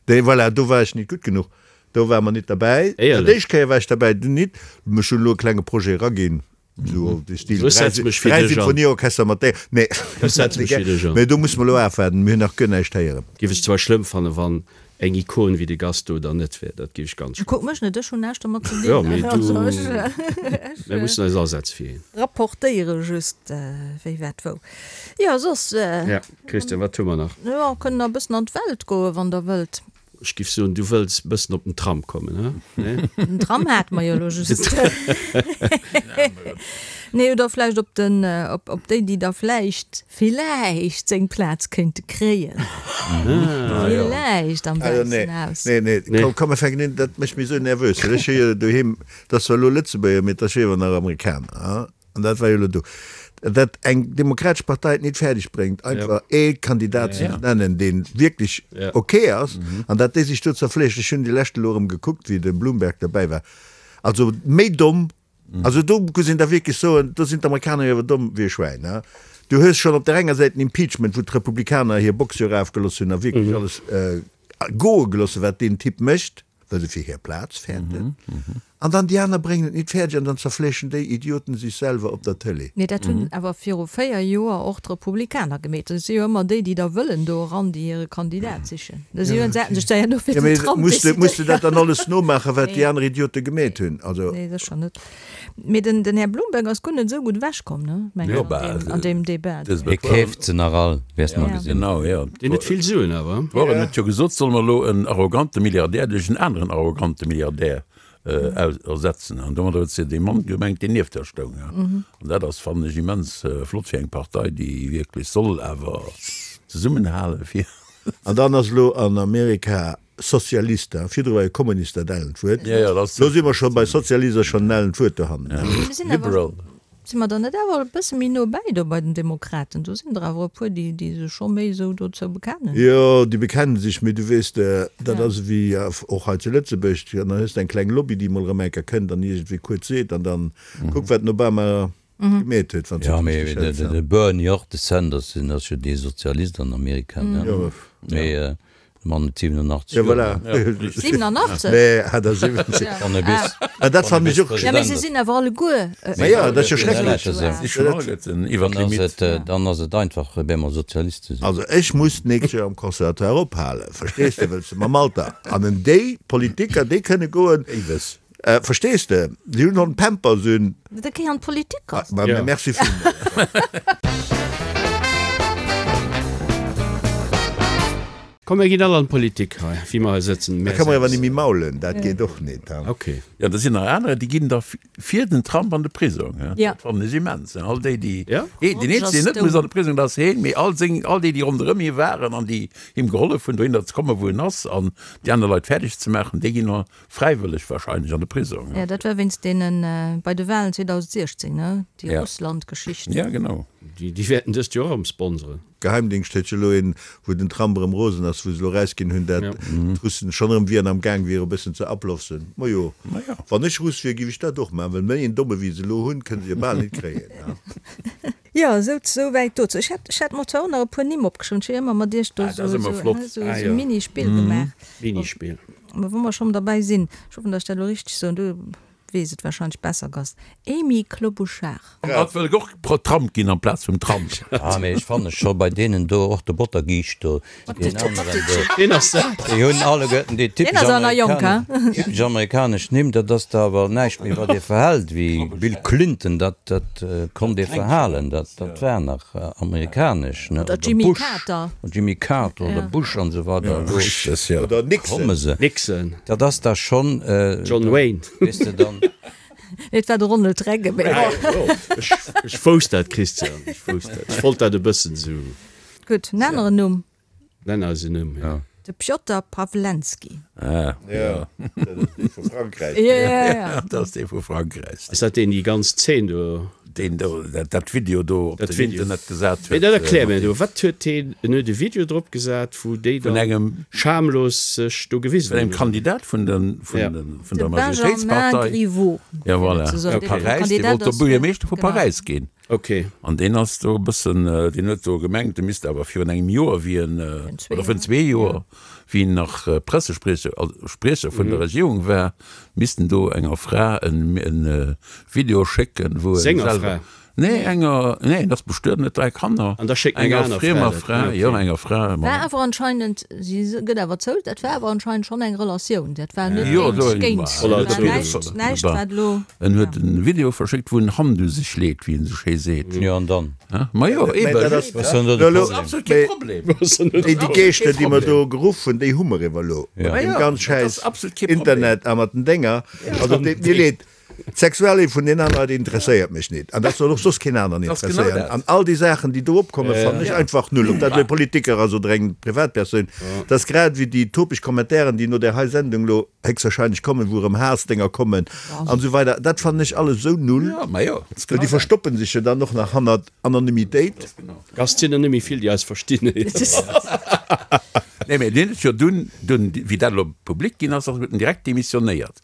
dee, voilà, do war ech nit gutt genuch. Do ware mer nit derbäi.
Éierlech?
D'éischt Kéier war ech derbäi, dunn nit. Ech hunn elo e klenge Projet eraginn, esou op de Stil
Ech setze mech fir
3
dech an.
Symphonieorchester mat där. Nee,
Ech setze mech fir dech an.
Mee do musse mer elo afwaarden, mir hunn nach guer näischt héieren.
Géif ech zwar schlëmm fannen, wann eng Ikon wéi de Gast do dann net wär. Dat géif ech ganz schlëmm.
Kuck mech net, ech hunn näischt domat ze dinn.
Jo, mee du,
Also ech,
mir mussen eis asetze fir hien.
rapportéiere just, wéi wat wou. Jo, soss.
Ja, Christian, wat hu mer nach?
Jo, kënnen nach e bëssen an d'Welt goen, wann Der wëllt.
Ech giff soen, du wëlls bëssen op den Tram kommen, he? Nee?
Den Tram hate mer jo elo just. Nee, oder vläicht op den, op, op déi, déi da vläicht, villäicht seng Plaz kéinte kréien. Villäicht am
Also nee,
Wäissen Haus.
nee, nee,
Nee.
komm, komm, mir fänken un, dat mécht mech esou nervös, well ech hu jo doheem, dat ass zwar elo Lëtzebuerger, mee dat ass jo iewer nach Amerikaner, he? An dat war jo elo do. Dat eng demokratesch Partei et nit fäerdeg bréngt, einfach ee Kandidat ze nennen, dee wierklech ok ass, an dat déi sech do zerfleeschen. Ech hunn déi lescht elo erëm gekuckt, wéi de Bloomberg derbäi war. Also méi domm, also do muss een da wierklech soen, do sinn d'Amerikaner jo awer domm wéi e Schwäin. Du hues schonn op där enger Säit den Impeachment, wou d'Republikaner hir Box jo erafgelooss hunn a wierklech alles goe gelooss hunn, wat deen Typ mécht. well se fir hir Plaz fäerten, an dann déi aner bréngen et nit fäerdeg an dann zerfleeschen déi Idioten sech selwer op der Tëlee.
Mee dat hunn awer viru 4 Joer och d'Republikaner gemeet. Et si jo ëmmer déi, déi da wëllen do eran, déi hire Kandidat sichen. Da si hunn se sech da herno fir den Trump
decidéiert. Muss de dat dann alles nomaachen, wat déi aner Idiote gemeet hunn? Also.
Nee, sécher net. Mee den den Här Bloomberg ass guer net esou gutt ewechkomm, ne, mengen ech, an deem an deem Debat.
Hie keeft se nach all, wäers mer gesinn.
Genau, jo.
Deen huet vill Suen awer.
D'Warren huet jo gesot, solle mer elo en arrogante Milliardär duerch en aneren arrogante Milliardär ersetzen. An domadder huet se dee Mann gemengt, deen nieft der stoung. An dat ass, fannen ech, immens flott fir eng Partei, déi wierklech soll awer zesummenhale fir.
An dann ass elo an Amerika Sozialist, hein, virdru war jo Kommunist dat ellent Wuert,
lo
si mer scho bei Sozialist, ass schonn en ellent Wuert dohannen.
Liberal.
Si mer dann net awer e bësse méi no bäi do bei den Demokraten? Do sinn der awer e puer, déi déi sech scho méi esou dozou bekennen.
Jo, déi bekennen sech, mee du weess, dat ass ewéi och hei zu Lëtzebuerg, dann hues de eng kleng Lobby, déi mol erëm eng Kéier kënnt an iergendwéi kuerz seet an dann kuck wat den Obama gemeet huet, wann s
de et richteg hëls. Jo, mee de Bernie och, de Sanders, deen ass jo dee Sozialist an Amerika, ne? Mee de Mann huet 87
Joer. Jo, voilà.
87?
Nee, 78.
Wann e bis,
Ah, dat fannen ech och.
Ja, mee se sinn awer alleguer.
Ma jo, dat ass jo schrecklech.
Si schonn alleguerten iwwer d'Limitt.
Dann ass et einfach, op eemol Sozialist ze sinn.
Also ech muss d'nächst Joer am Conservatoire ophalen, verstees de, wëlls de mam Alter. An en déi Politiker, déi kënne goen.
Éiwes.
Verstees de? Si hunn schonn Pampers un.
Da géi an d'Politik.
Ma merci villmools.
Komm mir ginn all an d'Politik hei, wéi mer hei sëtzen.
Da ka mer awer nemmi maulen, dat geet och net.
Ok.
Jo, da sinn nach anerer, déi ginn da fir den Trump an de Prisong. Dat fannen ech immens. All déi, déi, deen eenzegen, deen net muss an de Prisong, dat ass heen, mee all seng, all déi, déi ronderëm hie waren an déi him gehollef hunn, dohinner ze kommen, wou en ass, an déi aner Leit fäerdeg ze maachen, déi ginn Fräiwëlleg wahrscheinlech an de Prisong.
Jo, dat war wéinst deenen, bei de Wahlen 2016, ne? Déi Russland-Geschicht.
Ja, genau.
Déi wäerten dëst Joer erëm sponseren.
Geheimdingscht huet jo elo een, wou den Trump erëm rosen ass, wou se elo erausginn hunn, dat d'Russen schonn erëm wieren am Gaang wiere e bëssen ze ablofsen. Majo, wann ech Russ wier, géif ech dat och maachen, well méi een Domme wéi se elo hunn, kënne se jo bal nit kréien.
Jo, esou, esou wäit dozou. Ech hätt, ech hätt mer zwar och nach e puer Nimm opgeschriwwen, ech hu jo ëmmer mat iech do
Ah, dat ass ëmmer flott.
esou e Minispill gemaach.
Minispill.
Mä wa mer schonn derbäi sinn, ech hoffen, datt ech dat elo richteg soen, du weess et warscheinlech besser, Gast, Amy Klobuchar.
Hatt wëll och Trump ginn amplaz vum Trump.
Ah, mee ech fanne scho bei deenen do, och de Bottergiischt do, deen aneren do,
Ween ass dat?
déi hunn alleguerten déi
Deen
typesch
ass awer nach jonk,
amerikanesch,
hein?
typesch amerikanesch Nimm. Dat ass da awer näischt méi, wat ee verhält, wéi Bill Clinton, dat, dat konnt ee verhalen, dat, dat war nach amerikanesch, ne?
Oder
Oder
Jimmy
Bush.
Carter.
Jimmy Carter oder Bush an esou weider, elo
Oder Nixon.
komme se.
Nixon.
Dat ass da schonn,
John Wayne.
weess de dann.
Nee, et war de Ronald Reagan. Mee bon.
Ech wousst dat, Christian, ech wousst dat. Ech wollt dat e bëssen esou.
Gutt, en aneren Numm.
Nenn eis en Numm, jo.
De Pjotr Pawlenski.
Ah,
jo. Dat ass dee vu Frankräich.
Jo, jo, jo.
Dat ass dee vu Frankräich.
Ass dat deen, déi ganz Zeen do?
Deen do dat Video do op den Internet gesat huet.
Mee dat erklär mir do, wat huet deen, en huet e Video drop gesat, wou déi
dann
schamlos sech do gewisen
hunn. Vun engem Kandidat vun der vun der Majoritéitspartei.
De Benjamin Griveaux.
Ja voilà, vu Paräis, dee wollt do Buergermeeschter vu Paräis ginn.
Ok.
An deen ass do e bëssen, deen huet do gemengt, e misst awer virun engem Joer, wéi en, oder virun zwee Joer, wéi en nach Pressespriecher, also Spriecher vun der Regierung war, misst en do enger Fra e Video schécken, wou e
Senger Fra?
Nee, enger, nee, en ass bestuet, en huet 3 Kanner.
An da schéckt en eng
Enger
aner Fra
friemer
dat.
Fra, jo, enger Fra.
War awer anscheinend, si gëtt awer zou, dat war awer anscheinend schonn eng Relatioun, dat war net
Jo, do,
géint, géint,
voilà,
dat war näischt, näischt wat elo.
En huet en Video verschéckt, wou en Hand u sech leet, wéi en sou schéi seet.
Jo, an dann?
Ma jo, eben.
Dat ass
Was soll do de
elo,
Problem?
Absolut kee Problem.
Déi, déi Geeschter, déi mer do geruff hunn, déi hu mer ewer elo.
Ja.
Mat deem
Ja,
ganz
dat
schäiss
ass absolut kee Problem.
Internet a mat den Dénger. Also, et deet mir leed. D'Sexuallief vun den anere Leit interesséiert mech nit. An dat soll och soss keen aneren interesséieren. An all déi Saachen, déi do opkommen, fannen ech einfach null. Ob dat elo e Politiker ass oder eng Privatpersoun. Dat ass grad ewéi déi topeg Kommentairen, déi no där hei Sendung elo héchstwahrscheinlech kommen, wou erëm Haassdénger kommen an esou weider. Dat fannen ech alles esou null. Well déi verstoppen sech jo dann och nach hannert Anonymitéit.
Gast, sinn der net méi vill, déi eis verstinn.
Nee, mä deen huet jo dunn, dunn, wéi dat elo public ginn ass, huet en direkt demissionéiert.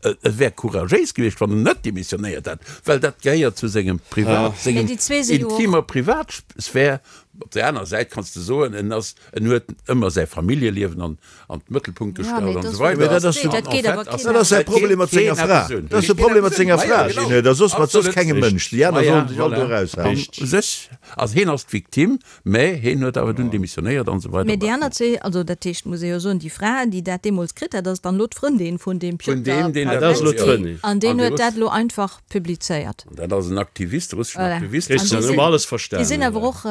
Et wär couragéis gewiescht, wann en net demissionéiert hätt, well dat gehéiert zu sengem Privat, sengem intimer Privatsphär. Op där aner Säit kanns de soen, en ass, en huet ëmmer säi Familljeliewen an an d'Mëttelpunkt gestallt an esou weider.
Dat ass dat ass säi Problem mat senger Fra. Dat ass de Problem mat senger Fra, Gene, dat soss mat soss kengem Mënsch. Déi aner sollen sech all do eraushalen.
U sech ass heen ass d'Victime, mä heen huet awer dunn demissionéiert an esou weider.
Mä déi aner zwee, also dat heescht, muss ee jo soen, déi Fra, déi dat deemools kritt hat, ass dann elo d'Frëndin vun deem Pjotr Pawlenski an deen huet dat elo einfach publizéiert.
An dat ass en Aktivist, e russeschen
Voilà.
Aktivist.
Christian, hu mer alles verstanen,
Déi sinn awer och,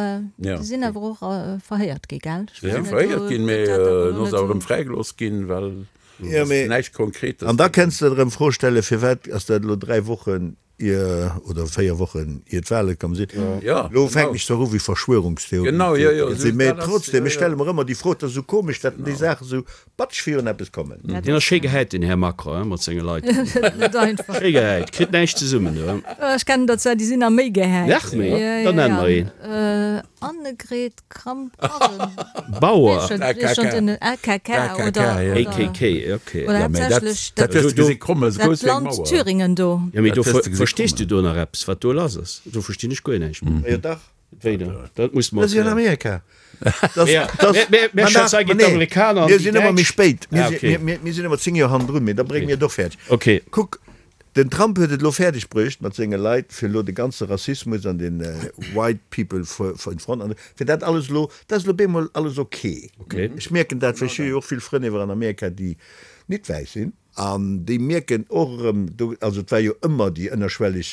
déi sinn awer och verhéiert gi, gell?
Déi si verhéiert ginn, mee elo ass awer erëm fräigelooss ginn, well
Ja, mee
näischt Konkretes.
An da kenns de der erëm d'Fro stellen, firwat ass dat elo 3 Wochen ier, oder 4 Wochen ier d'Wale komm sinn?
Ja,
Elo fänken ech zwar u wéi Verschwörungstheoretiker
Genau, jo, jo,
ze sinn, mee trotzdem, ech stelle mer ëmmer déi Fro, et ass esou komesch, datt déi Saachen esou Batsch virun eppes kommen.
Deen ass schéi gehäit den Här Macron hein, mat senge Leit.
Net einfach.
Schéi gehäit, kritt näischt zesummen do.
Ech kennen der zwar, déi sinn nach méi gehäit.
Nach méi? Da nenn mer een.
Annegret
Kramp-Karrenbauer. Bauer.
AKK oder.
AKK, ok.
Oder haaptsächlech dat Land Thüringen do.
Jo mee do verstees du do nach eppes wat do lass ass? Do verstinn ech guer näischt méi.
Jo dach.
Wéi dann? Dat muss
mer. Dat ass jo in Amerika.
Mir
sinn ëmmer méi spéit. Mir sinn ëmmer 10 Joer hannendrun, mee da brénge mir et och fäerdeg. Kuck, den Trump huet et elo fäerdeg bruecht mat senge Leit, fir elo de ganze Rassismus an den White people in front, an fir dat alles elo, dat ass elo bemol alles ok. Ech mierken dat, well ech hu jo och vill Frënn iwwer an Amerika, déi nit wäiss sinn. An déi mierken och erëm do, also et war jo ëmmer déi ënnerschwelleg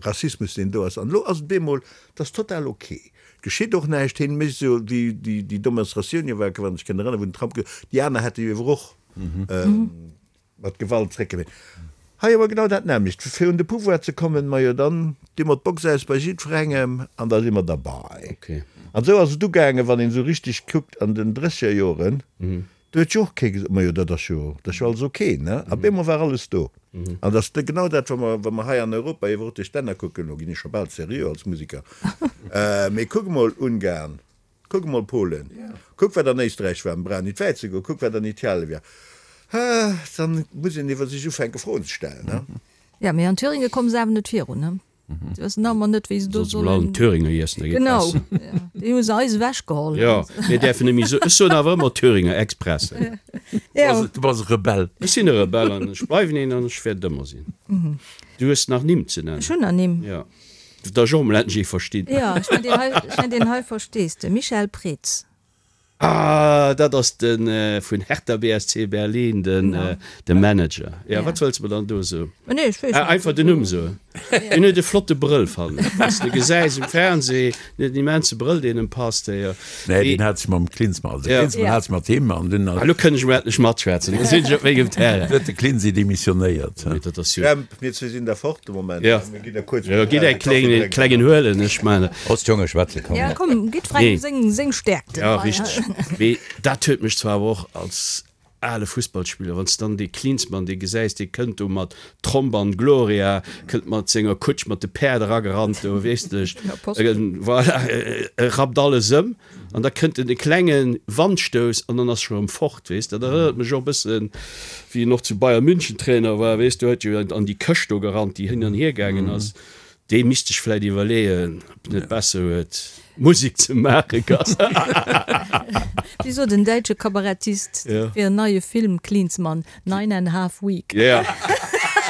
Rassismus, deen do ass, an elo ass et bemol, et ass total ok, et geschitt och näischt, hien mécht esou wéi déi déi Demonstratioun jo war, wann ech kënn erënneren, wou den Trump gesot huet, déi aner hätte jo ewer och mat Gewalt zréckgewéint. Hei awer genau dat nämmlecht, fir un de Pouvoir ze kommen, majo dann di mer d'Box aus bei jiddwerengem an da si mer derbei. An esou ass et ugaangen, wann een esou richteg kuckt an den Drëssegerjoren, Do huet jo och kee gesot, Majo, dat ass jo, dat ass jo alles ok, ne? A bemol war alles do. An dat ass genau dat, wa mer, wa mer hei an Europa iwwer och duerch d'Länner kucken, elo ginn ech scho bal seriö als Musiker, mee kuck emol Ungarn, kuck emol Polen, kuck wat an Éisträich war, mir brauchen nit wäit ze goen, kuck wat an Italie war, dann muss een iwwer sech ufänke Froen ze stellen, ne?
Jo, mee an Thüringe komme se awer net virun, ne? Se wëssen nach ëmmer net, wéi se do
Sollen sollen. Allen Thüringer iessen, da geet
Genau, besser. ja. Déi hu se eis ewechgeholl.
Jo, mir däerfen net méi soen. Ech soen awer ëmmer Thüringer Express.
Ja.
Du bass e Rebell.
Ech sinn e Rebell an ech bleiwen een an ech wäert et ëmmer sinn. Du hues nach Nimm ze nennen.
Ech hunn nach Nimm.
Jo. Da ech och emol endlech ee verstinn.
Jo, ech mengen, deen hei, ech mengen, deen hei verstees de. Michael Preetz.
Ah, dat ass de vun Hertha BSC Berlin, den de Manager. Ja, wat wëlls de mer dann do soen?
Nee, ech weess
net. Einfach den Numm soen. Deen huet e flotte Brëll, fannen ech. Wann s de gesäis um Fernseh, deen huet en immense Brëll, deen em passt.
Nee, deen hat sech mam Klinsmann, also de Klinsmann hat sech mat him an dunn.
Ah, elo kënn ech emol endlech matschwätzen, elo sinn ech op mengem Terrain.
Huet de Klinsi demissionéiert.
Mee dat ass jo.
Jemp, mir zwee sinn da fort de Moment.
Ja.
Mir ginn da kuerz.
Jo, gitt e klengen, klengen huelen, ech man.
Ost Jonge schwätze komm.
Ja, komm, gitt frei
Nee.
seng, seng Stärkten.
Ja, richteg. Mee dat huet mech zwar awer och als ale Fussballspiller, wann s de dann dee Klinsmann, dee gesäis, dee kënnt do mat Tromp an Gloria, kënnt mat senger Kutsch mat de Päerd eragerannt do, weess de, voilà, e rappt alles ëm an da kënnt en e klenge Wandstouss an dann ass scho erëm fort, weess de. Dat erënnert mech och e bëssen, wéi en och zu Bayern München Trainer war, weess de, huet jo an déi Këscht do gerannt, déi hin an hier gaangen ass. Dee misst sech vläit iwwerleeën, ob en net besser huet, Musek ze maachen.
Wéi sot en däitsche Kabarettist fir en neie Film, Klinsmann, Nine and half week.
Jo,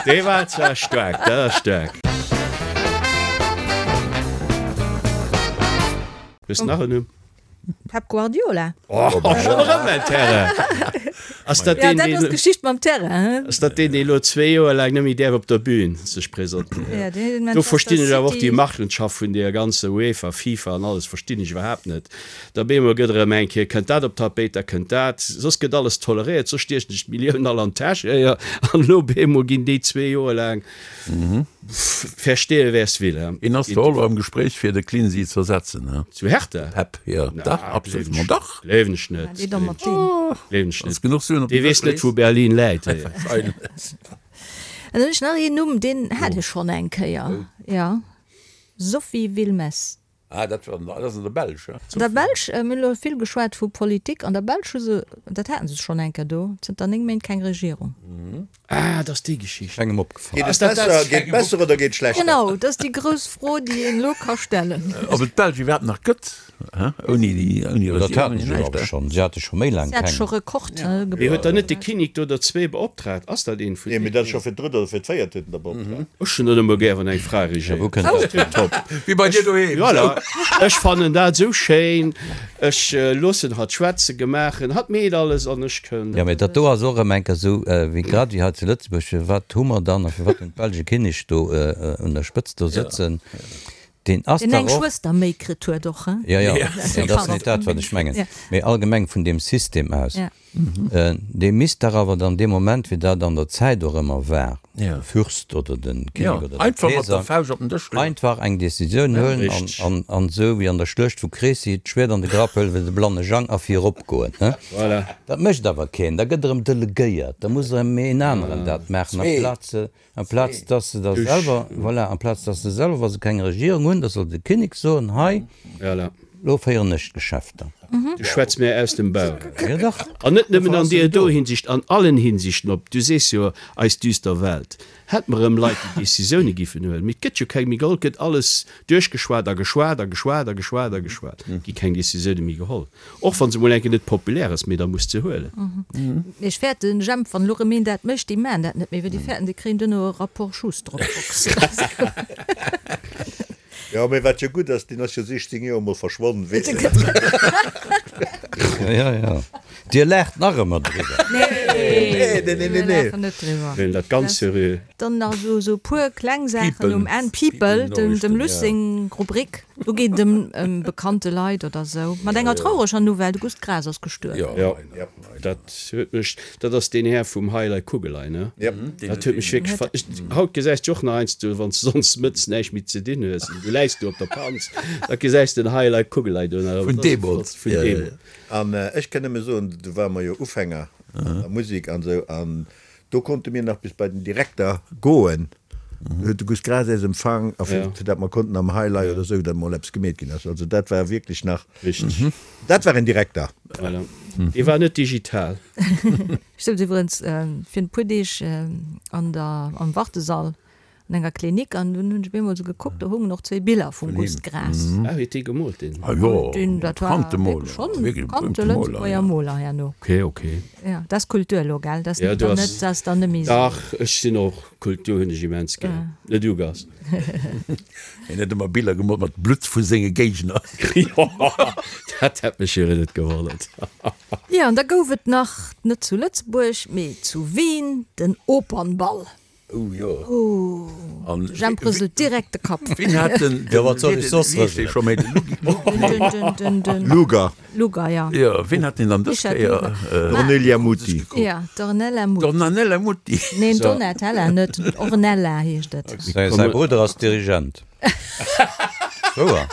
dee war zwar staark, dat ass staark. Hues de nach en Numm?
Pep Guardiola.
Oh, schonn erëm en Terrain! Ass dat
Ja,
deen,
dat ass
deen,
d'Geschicht mam Terrain, hein?
ass dat deen, deen elo zwee Joer laang net méi däerf op der Bühn sech presentéieren?
Ja, deen
Do
Manchester
verstinn ech awer och déi
City.
Machenschaft vun deer ganzer UEFA, FIFA an alles verstinn ech iwwerhaapt net. Da bemol gëtt erëm eng Kéier, kënnt dat op d'Tapéit, da kënnt dat, soss gëtt alles toleréiert, soss stiechen sech d'Milliounen all an d'Täsch, éier, an elo bemol ginn déi zwee Joer laang Verstehe wer's will, he?
Een ass zwar och elo am Gespréich fir de Klinsi z'ersetzen, he?
Zu Hertha?
Pep, jo, dach, absolut, ma dach!
Gleewen ech net.
Dee da mat deem.
Gleewen ech
Wanns
net.
genuch Suen op
Dee
den
weess
Dësch
net, wou
lees.
Berlin läit, hé.
An dann hunn ech nach een Numm, deen hat ech schonn eng Kéier, jo, Sophie Wilmès.
Ah, dat war, dat ass an der Belsch, he?
An der Belsch, mir hunn elo vill geschwat vu Politik, an der Belsch hu se, dat haten se schonn eng Kéier do, zënter 9 Méint keng Regierung.
Ah, dat ass déi Geschicht.
Kengem opgefall.
Geet et besser, geet besser oder geet schlechter?
Genau, dat ass déi grouss Fro, déi een elo ka stellen.
Ob et d'Belsch iwwerhaapt nach gëtt, he, ouni déi, ouni
Dat
Regierung,
haten
ouni
se jo
näischt,
awer
he?
schonn. Si hate scho méi laang
Si hat
keng.
scho Rekord
Mee
gebrach.
huet dann net de Kinnek do der zwee beoptraagt? Ass dat een vun
Nee, mee
deenen?
dat ass scho fir d'drëtt oder fir d'véiert huet en der beoptraagt.
Ech hunn dat ëmmer gär, wann eng Fra regéiert.
Wou kënnt dat hier?
Top.
Wéi bei dir doheem.
Voilà, ech fannen dat esou schéin. Ech loossen hatt schwätzen, gemaachen, hatt meet alles an ech kënn.
Jo, mee dat do ass och erëm eng Kéier esou, wéi grad wéi hei zu Lëtzebuerg, firwat hu mer dann a firwat hunn d'Belsch e Kinnek do un der Spëtzt do sëtzen, deen ass
Deen
dach
eng
och.
Schwëster méi kritt huet och, hein?
Jo, jo, mee dat ass net dat, wat ech mengen, mee allgemeng vun deem System aus. Dee misst dach awer dann dee Moment, wéi dat an der Zäit och ëmmer war, de Fürst oder de Kinnek oder de Keeser, einfach eng Decisioun huelen an an esou wéi an der Schluecht vu Crécy d'Schwäert an de Grapp huelen, wéi de blanne Jang a virop goen. Dat mécht awer keen, da gëtt erëm delegéiert, da muss erëm een aneren dat maachen amplaz Amplaz dass se da selwer, voilà, amplaz dass se selwer, wa se keng Regierung hunn, da soll de Kinnek soen, hei, elo féieren ech d'Geschäfter.
Du schwätz mir aus dem Bauch.
Jo dach.
An net nëmmen an deer do Hinsicht, an allen Hinsichten. Op, du sees jo, eis düster Welt. Hätt mer erëm Leit, déi Décisioune giffen huelen. Mee et gëtt jo keng méi geholl. Et gëtt alles duerchgeschwat a geschwat a geschwat a geschwat a geschwat. Et gi keng Décisioune méi geholl. Och wann se mol enke net populär ass, mee da muss se huelen.
Mee ech fäerten, Jemp, wann elo rëm een dat mécht, déi maachen dat net méi, well déi fäerten, déi kréien duerno e Rapport Schuss drop.
Jo, mee wat jo gutt ass, deen ass jo 16 Joer mol verschwonnen, weess de.
Jo, jo, Dir laacht nach ëmmer driwwer.
Nee,
Nee, nee, nee,
mir
nee.
laachen net driwwer.
Huelen dat ganz seriö.
Dann nach esou e puer kleng Saachen um
People.
Enn. People, dem
People-Noriichten,
Luss
ja.
seng Rubrik. Do geet et ëm bekannte Leit oder sou. Mat enger traureger Nouvelle, de Gust Graas ass gestuerwen.
Jo, dat huet mech, dat ass deen Här vum Heilei Kugelei, ne? Dat huet mech wierklech ver, ech, haut gesäis de och nach heiansdo, wann s de sonns mëttes näischt méi ze dinn hues an du läis do op der Panz, da gesäis de den Heilei Kugelei do nach.
Vun deemools.
Vun deemools.
An ech kann nëmme soen, do ware mer jo Ufänger an der Musek an esou, an Do konnte mir nach bis bei den Direkter goen. Do huet de Gust Graas äis empfang a fir fir dat mer konnten am Highlight oder esou, dat mol eppes gemeet ginn ass. Also dat war wierklech nach,
Richteg.
dat war en Direkter.
Voilà. Dee war net digital.
Ech souz iwwerens fir en puer Deeg an der, am Wartesall An enger Klinik an dunn hunn ech op eemol esou gekuckt, do hungen och zwéi Biller vum Gust Graas.
Ah, huet dee gemoolt deen?
Ah jo,
Deen, dat war
bekannte Moler,
wierklech schonn e
wierklech
bekannte
berühmte Moler,
Lëtzebuerger
ja.
Moler herno.
Ok, ok.
Ja, dat ass Kultur elo, gell? Dat ass
Ja,
net
du
dann
ass,
net, dat ass dann net méi esou.
dach, ech sinn och, Kultur hunn ech immens gär. Net du, Gast?
Hien huet ëmmer Biller gemoolt mat Blutt vu senge Géigner.
Jo, dat hätt mech jo net gewonnert.
Jo, an da gouf et nach, net zu Lëtzebuerg, mee zu Wien, den Opernball.
Oh jo. An
De Jemp rëselt direkt de Kapp.
Wien hat den,
Jo, wat soll ech soss
wéi heescht dee
rëselen?
scho méi, de Lugi,
Den, den, den, den
Luger.
Luger, ja.
Jo, wien hat deen dann dës
Richard
Kéier?
Luger.
D'Ornelia Muti.
Ja, d'Ornella Muti.
D'Ornella Muti.
Neen, Donatella net, Ornella heescht et.
Säi säi Brudder ass Dirigent. Wouer?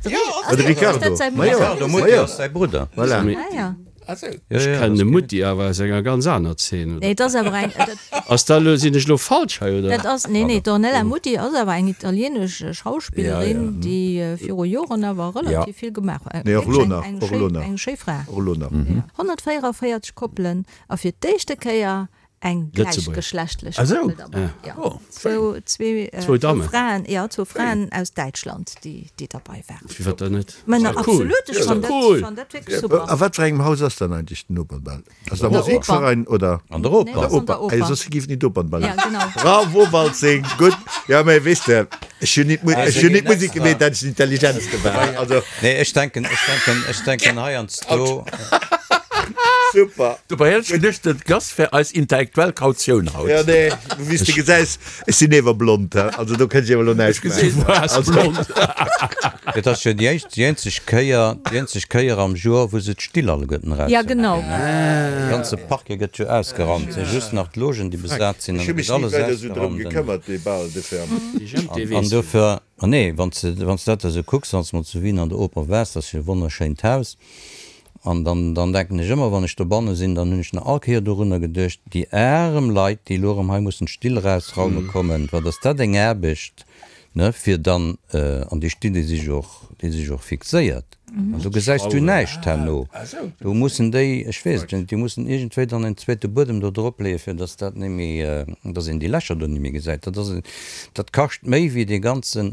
De Riccardo. Ma jo.
Riccardo Muti ass säi Brudder.
Voilà.
Ah ja.
Ech kennen de Mutti awer aus enger ganz aner Zeen, oder?
Nee, et ass awer eng, dat.
Ass dat elo, sinn ech elo falsch hei, oder?
Dat ass, nee, nee, d'Ornella Muti ass awer eng italienesch Schauspillerin, déi viru Joren awer relativ vill gemaach huet.
Nee, och elo nach, och elo nach.
Eng schéi Fra.
Och elo nach.
144 Koppelen a fir d'éischte Kéier eng gläichgeschlechtlech Koppel derbäi. Jo, zwou, zwee,
Zwou Dammen.
Fraen, jo, zwou Fraen aus Däitschland, déi, déi derbäi waren.
Firwat dann net?
Mä
Ass doch cool.
absolut, ech
Ass
fann
doch
dat,
cool.
fann dat wierklech super.
A wat fir engem Haus ass dann eigentlech den Opernball? Ass et am Musikverein oder?
An der Oper.
Nee, ass an der
Oper.
Oper.
Soss géif et nit Opernball
Ja, genau.
Bravo Waltzing, gutt. Jo, mä weess de, ech hunn nit, ech hunn nit Musik gemeet, dat ech den intelligentste war. Also.
Nee, ech denken, ech denken, ech denken heiansdo.
Super.
Dobäi hätt ech geduecht, den Gast wär eis intellektuell Kautioun haut.
Jo, nee, wéi s de gesäis, ech sinn ewer blond, he, also do kënnt ech ewer elo näischt
maachen. Du waars blond.
Et ass jo déi éischt, déi eenzeg Kéier, déi eenzeg Kéier am Joer, wou se d'Still alleguerten
Ja,
eraushuelen.
genau.
De ganze Parquet gëtt jo ausgeraumt, et si just nach d'Logen, déi besat sinn,
Ech
an
hu
et
mech
gëtt
ni
alles
weider esou drëm
ausgeraumt.
gekëmmert, dee Bal de ferme.
An dofir, ah nee, wann s de, wann s de dat esou kucks, wann s de mol zu Wien an der Oper waars, dat ass jo e wonnerschéint Haus, An dann, dann denken ech ëmmer, wann ech dobanne sinn, dann hunn ech nach all Kéier dorunner geduecht, déi arem Leit, déi elo erëm hei mussen d'Still erausraume kommen, wat ass dat eng Aarbecht, ne, fir dann, an déi Still, déi si jo och, déi si jo och fixéiert, an do gesäis du näischt herno. Do mussen déi, ech weess et jo net, déi mussen iergendwéi dann en zweete Buedem do drop leeën, fir dass dat net méi, dass een déi Lächer do net méi gesäit. Dat ass, dat kascht méi wéi dee ganzen,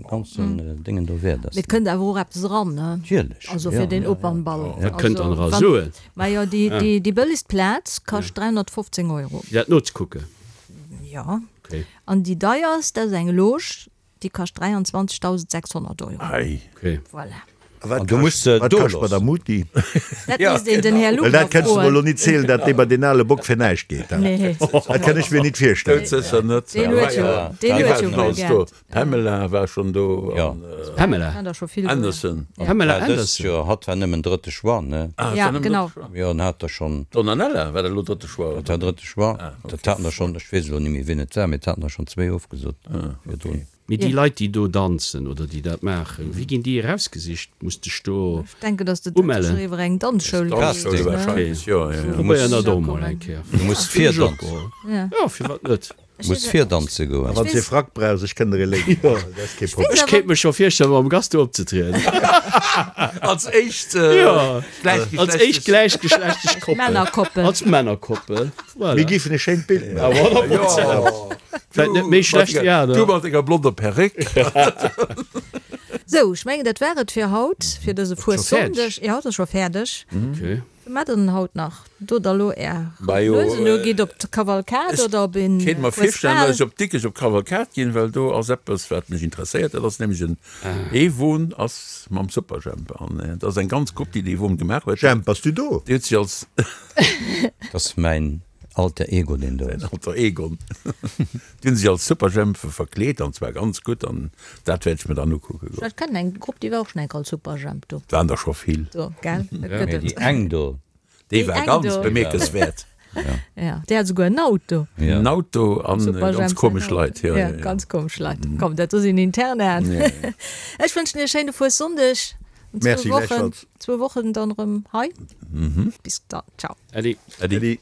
ganzen Déngen do wäert ass.
Mee et kënnt awer och eppes eran, ne?
Natierlech.
Also fir den Opernball.
Wat kënnt dann era Suen?
Majo, déi déi bëllegst Plaz kascht 315 Euro.
Fir dat nozekucken?
Jo. An déi deierst, dat ass eng Loge, déi kascht 23.600 Euro.
Ei.
Okay.
Voilà.
A wat
An du muss se
kascht, wat
do
kascht
loossen.
Madame Muti?
Dat misst een den Här
Well
Lugner
dat kënnst du mer elo
froen.
nit zielen, dat dee bei deen ale Bock fir näischt geet.
Nee.
Dat kann ech mir nit virstellen.
Doudsécher net.
Deen huet jo, deen huet jo wuel Geld.
Pamela war schon do an
Pamela
Anderson.
Pamela
Dëst
Anderson.
Joer, hatt war nëmmen drëtte Choix, ne?
Ah,
Ja, genau.
Jo, en hat der schonn.
Donanella war dat elo drëtte Choix,
Dat war drëtte Choix. Dat haten der schonn, ech weess elo net méi wien et war, mee et haten der schonn zwéi ofgesot virdrun.
Mee déi Leit, déi do danzen oder déi dat maachen, wéi ginn déi erausgesicht? Muss dech do
Ech denken, dass de dat
umellen?
sécher iwwer eng Danzschoul geet,
Danzschoul
ne?
wahrscheinlech, jo, jo, jo.
Probéieren dat och mol eng Kéier.
Du muss virdanzen.
Jo, firwat net?
Muss virdanze goen.
A wann s de e Frack brauchs, ech kënn der ee léinen. Dat ass kee Problem.
Ech kéint mech scho virstellen, mam Gast do opzetrieden.
Als éischt
Als éischt gläichgeschlechtlech Koppel.
Männerkoppel.
Als Männerkoppel. Voilà.
Mir géifen e schéint Bild maachen.
Ja, Vläicht net méi schlecht wéi aner.
Du mat denger blonder Perréck.
Sou, ech mengen, dat war et fir haut, fir dëse Fuessonndeg. Jo, et ass scho fäerdeg.
Okay.
Wat maacht der denn haut nach? Dot der elo är
Majo,
Nuesen u, gitt op d'Kavalkad oder op een
Ech kéint mer virstellen,
Fuesbal?
datt ech op Dikrech op d'Kavalkad ginn, well do ass eppes, wat mech interesséiert. Dat ass nämlech en ee Won ass mam Superjhemp an dat ass eng ganz Grupp, déi dee Won gemaach huet.
Jhemp, bass du do?
Déi huet sech als.
Dat ass mäin Alter Ego, deen do
Säin
ass.
Alter Egon. Déi hunn sech als Superjhempe verkleet an zwar ganz gutt an dat wäert ech mir dann ukucke goen.
Ech kennen eng Grupp, déi war och schon eng Kéier als Superjhemp do.
Et waren der scho vill.
Do, gell? Dat gëtt
Mee
et.
déi eng do.
Déi war
eng
ganz
do.
bemierkenswäert.
Ja, déi hat esouguer en Auto.
Ja.
En Auto an
Superjhemp
ganz
säin
komesch
Auto.
Leit. Ja,
Ja,
ja, ja.
ganz komesch Leit. Komm, dat do sinn Internaen.
Ja, ja.
Ech wënschen iech e schéine Fuessonndeg. An zwou
Merci,
Wochen,
gläichfalls.
zwou Wochen dann erëm hei. Bis dann. Ciao.
Äddi.
Äddi.
Äddi.